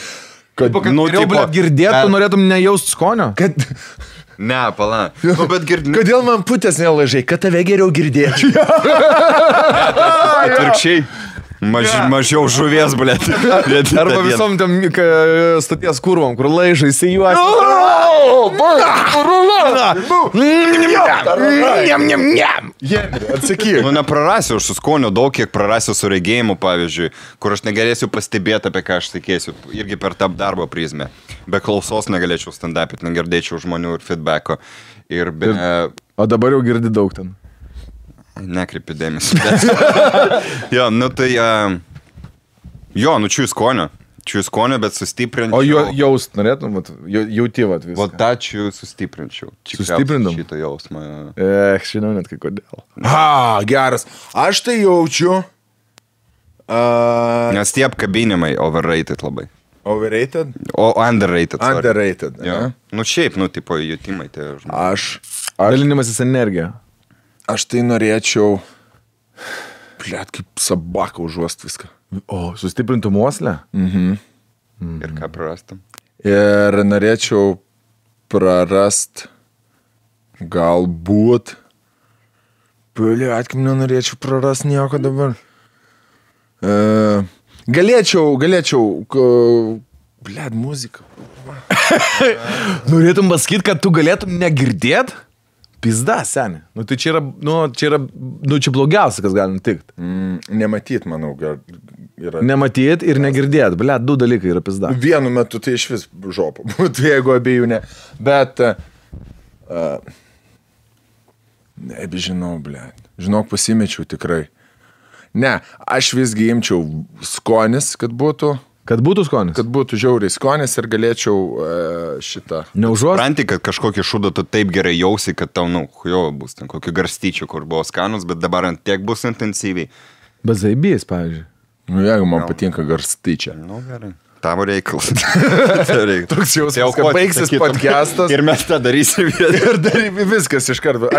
Girdėtų, norėtum nejaust skonio? Ne, pala. Bet Kodėl man putės nelaižai, kad tave geriau girdėčiau? Atvirkščiai. Mažiau žuvies, blėt. Arba visom tam stoties kurvom, kur laižai įsijuosi. Atsakyk. Nu, neprarasiu aš su skoniu daug, kiek prarasiu su regėjimu, pavyzdžiui, kur aš negalėsiu pastebėti, apie ką aš tikėsiu, irgi per tą darbo prizmę. Be klausos negalėčiau stand-up'it, negirdėčiau žmonių ir feedbacko. O dabar jau girdi daug ten. Nekreipi dėmesį. Jo, nu tai... Čiū skonio, bet sustiprinčiau. O jaust norėtum, jauti vat viską. O tą čiū sustiprinčiau. Sustiprindam? Šitą jausmą. Žinau net kai kodėl. Geras. Aš tai jaučiu... Nes tie apkabinimai overrated labai. Overrated? O underrated. Underrated. Nu šiaip, tipo jutimai tie žmonės. Dalinimasis energija. Aš tai norėčiau... Blet, kaip sabaka užuost viską. O, sustiprintų uoslę? Ir ką prarastum? Ir norėčiau prarast galbūt. Blet, kaip nenorėčiau prarast nieko dabar. Galėčiau, blet, muzika. Norėtum pasakyti, kad tu galėtum negirdėt? Pizda, seni. Nu, tai čia yra blogiausia, kas gali nutikti. Nematyt, manau, yra. Nematyt ir negirdėt. Blet, 2 dalykai yra pizda. Vienu metu tai iš vis žopa būtų, jeigu abiejų ne. Bet, nebežinau, blet. Žinok, pasimečiau tikrai. Ne, aš visgi imčiau skonis, kad būtų. Kad būtų skonis? Kad būtų žiauriai skonis ir galėčiau šitą. Neužuost? Pranti, kad kažkokį šūdą tu taip gerai jausi, kad tau, jo, bus ten kokį garstyčių, kur buvo skanus, bet dabar ant tiek bus intensyviai. Bet zaibys, pavyzdžiui. Nu, jeigu man patinka garstyčia. Nu, gerai. Tavo reikalas. Toks jausmas, kad baigsis podcastas. Ir mes tą darysim. Ir darysim viskas iš karto.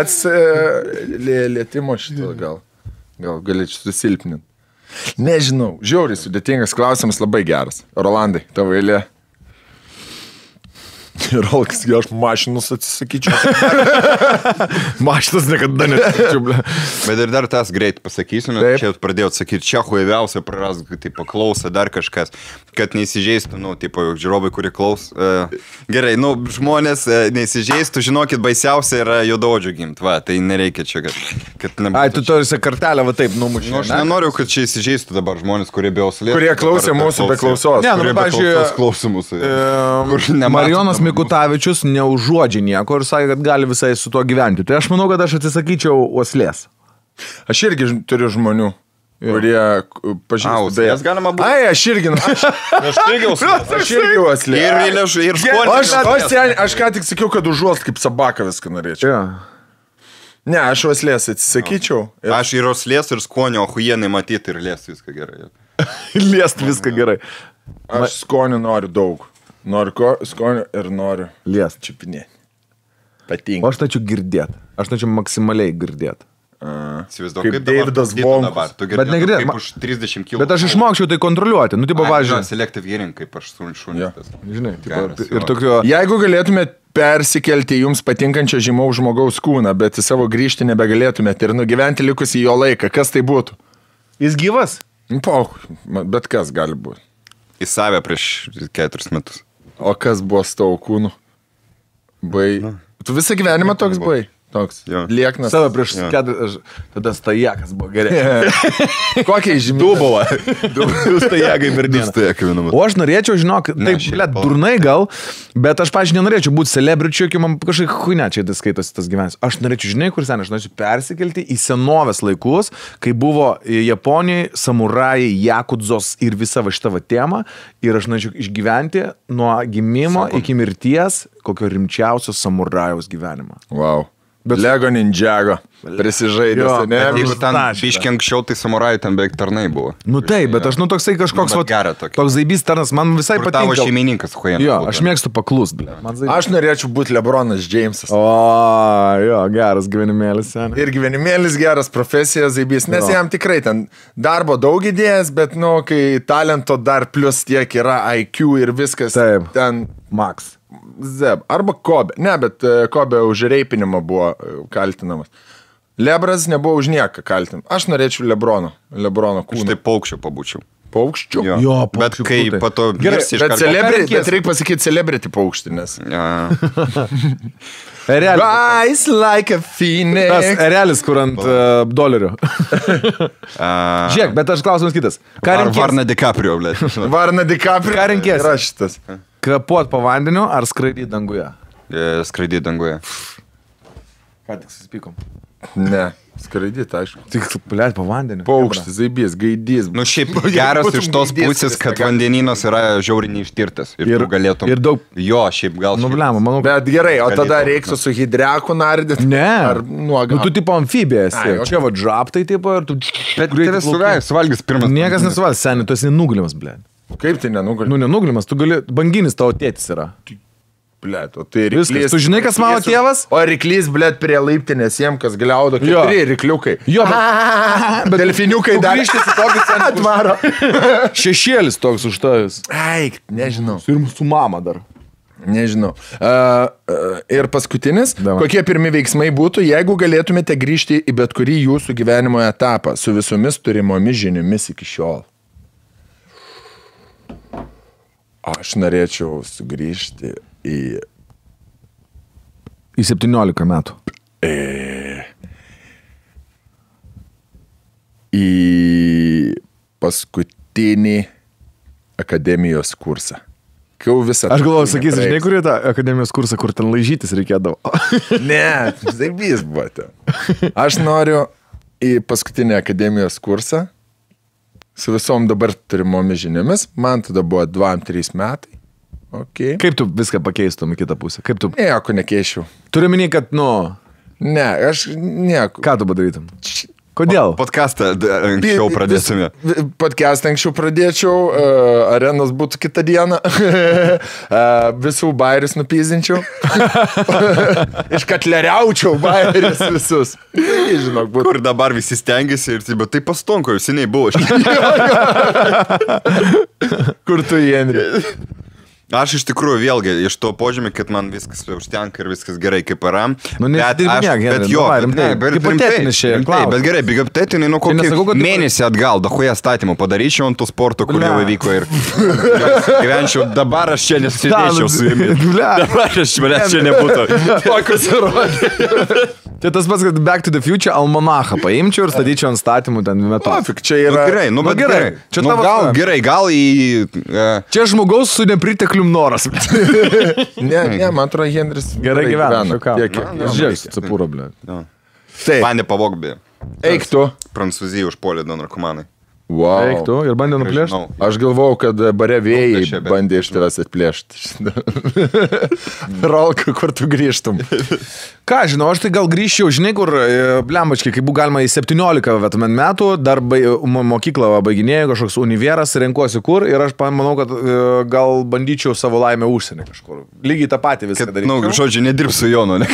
Lietimo šitą gal galėčiau susilpninti. Nežinau, žiauriai sudėtingas klausimas, labai geras. Rolandai, tavo eilė. Rolkas, aš mašinus atsisakyčiau. Mašinas niekada neatsisakyčiau. Bet ir dar tas greit pasakysiu, nes čia pradėjau sakyti, čia huiviausia praras, tipo, klauso dar kažkas, kad neįsižeistų, tipo, žiūrovai, kurie klaus. Gerai, žmonės neįsižeistų, žinokit, baisiausia yra juodaodžių gimt, va, tai nereikia čia, kad nebūtų. Ai, tu turisi kartelę, va taip, numušė. Aš nenoriu, kad čia įsižeistų dabar žmonės, kurie be auslės. Kurie klausė mūsų be klausos. Ne, kurie be klausos klausė mūsų. Marijonas Mikutavičius neužuodžia nieko ir sakė, kad gali visai su tuo gyventi. Tai aš manau, kad aš atsisakyčiau uoslės. Aš irgi turiu žmonių, kurie pažįstu. Jas galima būti. Ai, aš irgi uoslės. Ir skonis. Aš ką tik sakiau, kad užuost kaip sabaka viską norėčiau. Ne, aš uoslės atsisakyčiau. Aš ir uoslės, ir skonio, ohujienai matyti ir liest viską gerai. Liest viską gerai. Aš skonio noriu daug. Noriu skonio ir noriu liest. Čiupinėti. Patinka. O aš norėčiau girdėti. Aš norėčiau maksimaliai girdėti. Kaip Davidas Vonkus. Bet negirdėt. Kaip už 30 kg. Bet aš išmokčiau tai kontroliuoti. Nu, tipo, važiuoju. Selective hearing, kaip aš šunis. Žinai, ir tokio... Jeigu galėtumėt persikelti jums patinkančią žymaus žmogaus kūną, bet į savo grįžti nebegalėtumėt ir nugyventi likusį jo laiką, kas tai būtų? Jis gyvas? Bet kas gali būti? Į save prieš 4 metus. O kas buvo su tavo kūnu? Tu visą gyvenimą toks buvai? Toks. Lieknas. Save prieš 4... Tada stajakas buvo gerai. Kokiai žymiai? Du stajakai per dieną. O aš norėčiau, žinok, taip, durnai gal, bet aš, pažiūrėjau, nenorėčiau būti celebričiu, kai man kažkaip huinė čia skaitosi tas gyvenimas. Aš norėčiau, žinai, kur sen, aš norėčiau persikelti į senovės laikus, kai buvo Japonijai, samurajai, jakudzos ir visa va šita va tema, ir aš norėčiau išgyventi nuo gimimo iki mirties kokio rimčiausio samurajaus gyvenimo. Wow. Bet Lego Ninjago prisižaidęs, ne? Jeigu ten biškiai anksčiau, tai samurajai ten beveik tarnai buvo. Nu taip, bet aš toksai kažkoks toks zaibys tarnas, man visai patinka. Tavo šeimininkas, huijana. Jo, aš mėgstu paklust, ble. Aš norėčiau būti Lebronas Jamesas. O, jo, geras gyvenimėlis, sen. Ir gyvenimėlis geras, profesija zaibys, nes jam tikrai ten darbo daug idėjas, bet, kai talento dar plus tiek yra IQ ir viskas. Taip, ten Max. Zeb. Arba Kobe. Ne, bet Kobe už reipinimą buvo kaltinamas. Lebras nebuvo už nieką kaltinamas. Aš norėčiau Lebrono kūną. Aš tai paukščio pabūčiau. Paukščių? Jo, bet kai pato... Gerai, bet reikia pasakyti celebrity paukštį, nes... Rise like a phoenix. Tas erelis, kur ant dolerio. Žiūrėk, bet aš klausimas kitas. Ar Varna DiCaprio, blė? Varna DiCaprio. Ką renkės? Yra šitas. Kapuot po vandeniu ar skraidyti danguje? Skraidyti danguje. Ką tik susipykom? Ne, skraidyti, aišku. Tik, blėt, po vandeniu. Paukštis, zaibys, gaidys. Nu šiaip geras iš tos pusės, kad vandenynas yra žiauriai neištirtas. Ir galėtum... Ir daug... Jo, šiaip gal... Nu, blėma, manau... Bet gerai, o tada reiktų su hidreku nardyti? Ne. Ar nuoga? Nu, tu tipo amfibija esi. Čia va džaptai tipo ir tu... Bet tave suvalgys pirmas. Niekas nesuvalgys, seniai, tu esi nugulimas, blėt. Kaip tai nenugulimas? Nu, nenugulimas, tu gali... Banginis tavo tėtis yra. Blet, o tai ryklys. Viskas. Tu žinai, kas mano tėvas? O ryklys, blet, prie laiptinės jiem, kas gliaudo, 4 rykliukai. Jo, bet delfiniukai dar. Grįžtis į tokį centrą atvaro. Šešėlis toks už tavęs. Eik, nežinau. Ir su mama dar. Nežinau. Ir paskutinis. Kokie pirmi veiksmai būtų, jeigu galėtumėte grįžti į bet kurį jūsų gyvenimo etapą su visomis turimomis žiniomis iki šiol? Aš norėčiau sugrįžti į 17 metų. Į paskutinį akademijos kursą. Aš galvoju, sakysi, žinai, kur tą akademijos kursą, kur ten laižytis reikėdavo. Ne, zaibys buvo ten. Aš noriu į paskutinį akademijos kursą su visom dabar turimomis žiniomis. Man tada buvo 2-3 metai. Okay. Kaip tu viską pakeistum į kitą pusę? Kaip tu... Nieko nekeičiau. Turiu minį, kad, Ne, aš nieko. Ką tu padarytum? Kodėl? Podcastą anksčiau pradėsime. Podcastą anksčiau pradėčiau, arenos būtų kitą dieną, visų bairius nupyzinčiau, iškatleriaučiau bairius visus. Žinok, būtų. Kur dabar visi stengiasi ir bet tai pastonko, jau seniai buvo. Kur tu, Henri? Aš iš tikrųjų vėlgi iš to požymį, kad man viskas užtenka ir viskas gerai kaip yra. Bet jo, bet gerai, hipotetiniai, nu kokį mėnesį atgal, dahuja statymų padaryčiau ant tų sportų, kur jau įvyko ir gyvenčiau, dabar aš čia nesėdėčiau su jumis. Dabar aš manęs čia nebūtų. Tokius įrodė. Tai tas pats, kad Back to the Future almanachą paimčiau ir statyčiau ant statymų ten metu. Pafik, čia yra... Gerai, bet gerai. Čia tavo gal į... Čia žmogaus su nepriteklium noras. Ne, man atrodo, Henris gerai gyvena. Žiūrėk, Cepūro, blė. Mane pavogbi. Eik tu. Prancūzija užpuolė du narkomanai. Wow. Eik tu ir bandė nuplėšti. Aš galvojau, kad bare vėjai bandė iš tavęs atplėšti. Rolka, kur tu grįžtum? Ką, žinau, aš tai gal grįžčiau, žinai, kur, blembačkai, kai buvo galima į 17 metų, dar mokyklą baiginėjau, kažkoks univeras, renkuosi kur ir aš manau, kad gal bandyčiau savo laimę užsienį kažkur. Lygiai tą patį viską daryti. Nu, žodžiu, nedirbsiu Jonu, ne?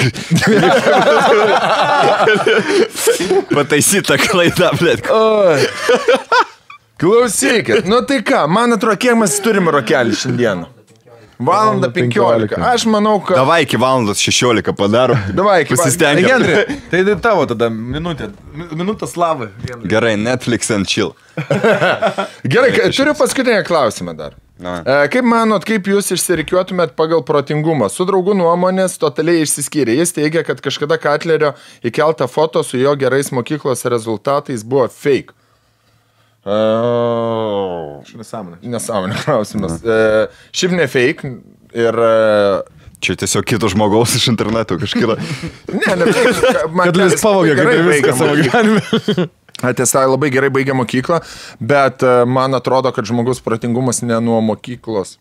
Pataisyta klaida, blėt. Klausykit, nu tai ką, man atrodo, kiek mes turime rokelį šiandieną? 1:15. Aš manau, kad... Davai iki 1:16 padarom. Davai iki... Pasistengiam. Henri, tai tavo tada minutė slavai. Gerai, Netflix and chill. Gerai, turiu paskutinę klausimą dar. Kaip manot, kaip jūs išsirikiuotumėt pagal protingumą? Su draugų nuomonės totaliai išsiskyrė. Jis teigia, kad kažkada Katlerio įkeltą foto su jo gerais mokyklos rezultatais buvo fake. Nesąmonė klausimas. Šiaip ne fake ir... Čia tiesiog kito žmogaus iš interneto kažkada. Ne fake. Kad jis pavogė kaip ir viską savo gyvenime. Tiesa, labai gerai baigė mokyklą, bet man atrodo, kad žmogus protingumas ne nuo mokyklos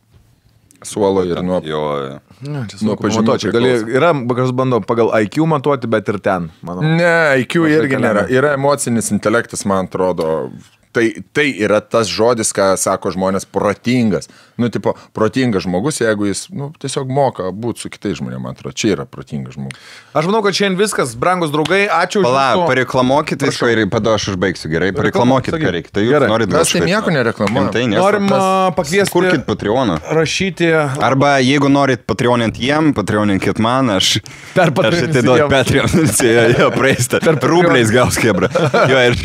suolo ir nuo... Nuo pažymėto. Yra, kas bando pagal IQ matuoti, bet ir ten, manau. Ne, IQ irgi nėra. Yra emocinis intelektas, man atrodo. Tai yra tas žodis, ką sako žmonės, protingas. Nu, tipo, protingas žmogus, jeigu jis, tiesiog moka būti su kitais žmonėmis, man atrodo, čia yra protingas žmogus. Aš manau, kad šiandien viskas, brangus draugai, ačiū už... Pareklamokit viską ir pada aš užbaigsiu, gerai? Pareklamokit, ką reikia. Tai jūs norit... Mes tai nieko nereklamuojam. Norim pakviesti... Kurkit Patreoną. Rašyti... Arba jeigu norit Patreonint jiem, Patreoninkit man, aš atiduot Patreon. Jo, praeista. Rubliais gaus kebra. Jo, ir...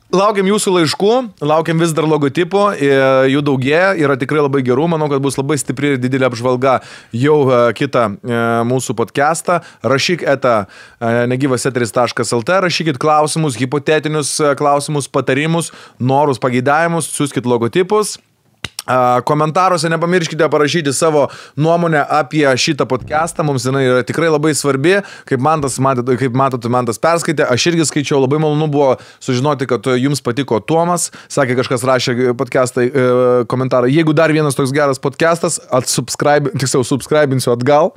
Laukiam jūsų laiškų, laukiam vis dar logotipų, jų daugėja, yra tikrai labai gerų, manau, kad bus labai stipri ir didelė apžvalga jau kitą mūsų podcastą. Rašyk negyvaseteris.lt, rašykit klausimus, hipotetinius klausimus, patarimus, norus, pageidavimus, siųskit logotipus. Komentaruose nepamirškite parašyti savo nuomonę apie šitą podcastą, mums jinai yra tikrai labai svarbi, kaip matote, man tas perskaitė, aš irgi skaičiau, labai malonu buvo sužinoti, kad jums patiko Tomas, sakė, kažkas rašė podcastą komentarą, jeigu dar vienas toks geras podcastas, subscribinsiu atgal.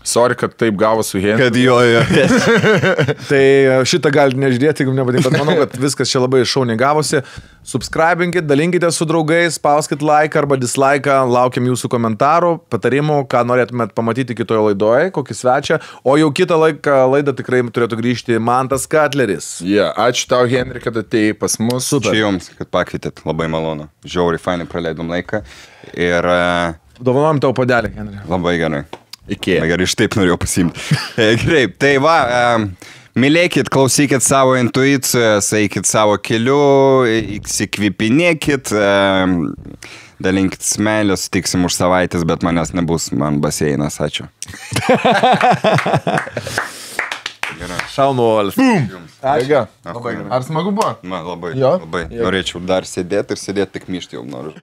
Sorry, kad taip gavo su Henriu. Kad jo. Tai šitą galite nežiūrėti, jeigu nepatinka, bet manau, kad viskas čia labai šauniai gavosi. Subscribinkit, dalinkite su draugais, spauskit like arba dislike, laukiam jūsų komentarų, patarimų, ką norėtumėt pamatyti kitoje laidoje, kokį svečią. O jau kitą laidą tikrai turėtų grįžti Mantas Katleris. Ačiū tau, Henri, kad atėjai pas mus. Super. Ačiū jums, kad pakvietėt, labai malonu. Žiauriai fainai praleidom laiką. Ir... Dovanojam tau padelį, Henri. Labai gerai. Iki. Gerai, iš taip norėjau pasimti. Gerai, tai va, mylėkit, klausykit savo intuicijos, eikit savo keliu, įsikvipinėkit, dalinkit meilę, sutiksim už savaitės, bet manęs nebus, man baseinas, ačiū. Šaunuolis. Ačiū. Ar smagu buvo? Man labai, Jo? labai. Norėčiau dar sėdėti ir sėdėti tik myšti jau noriu.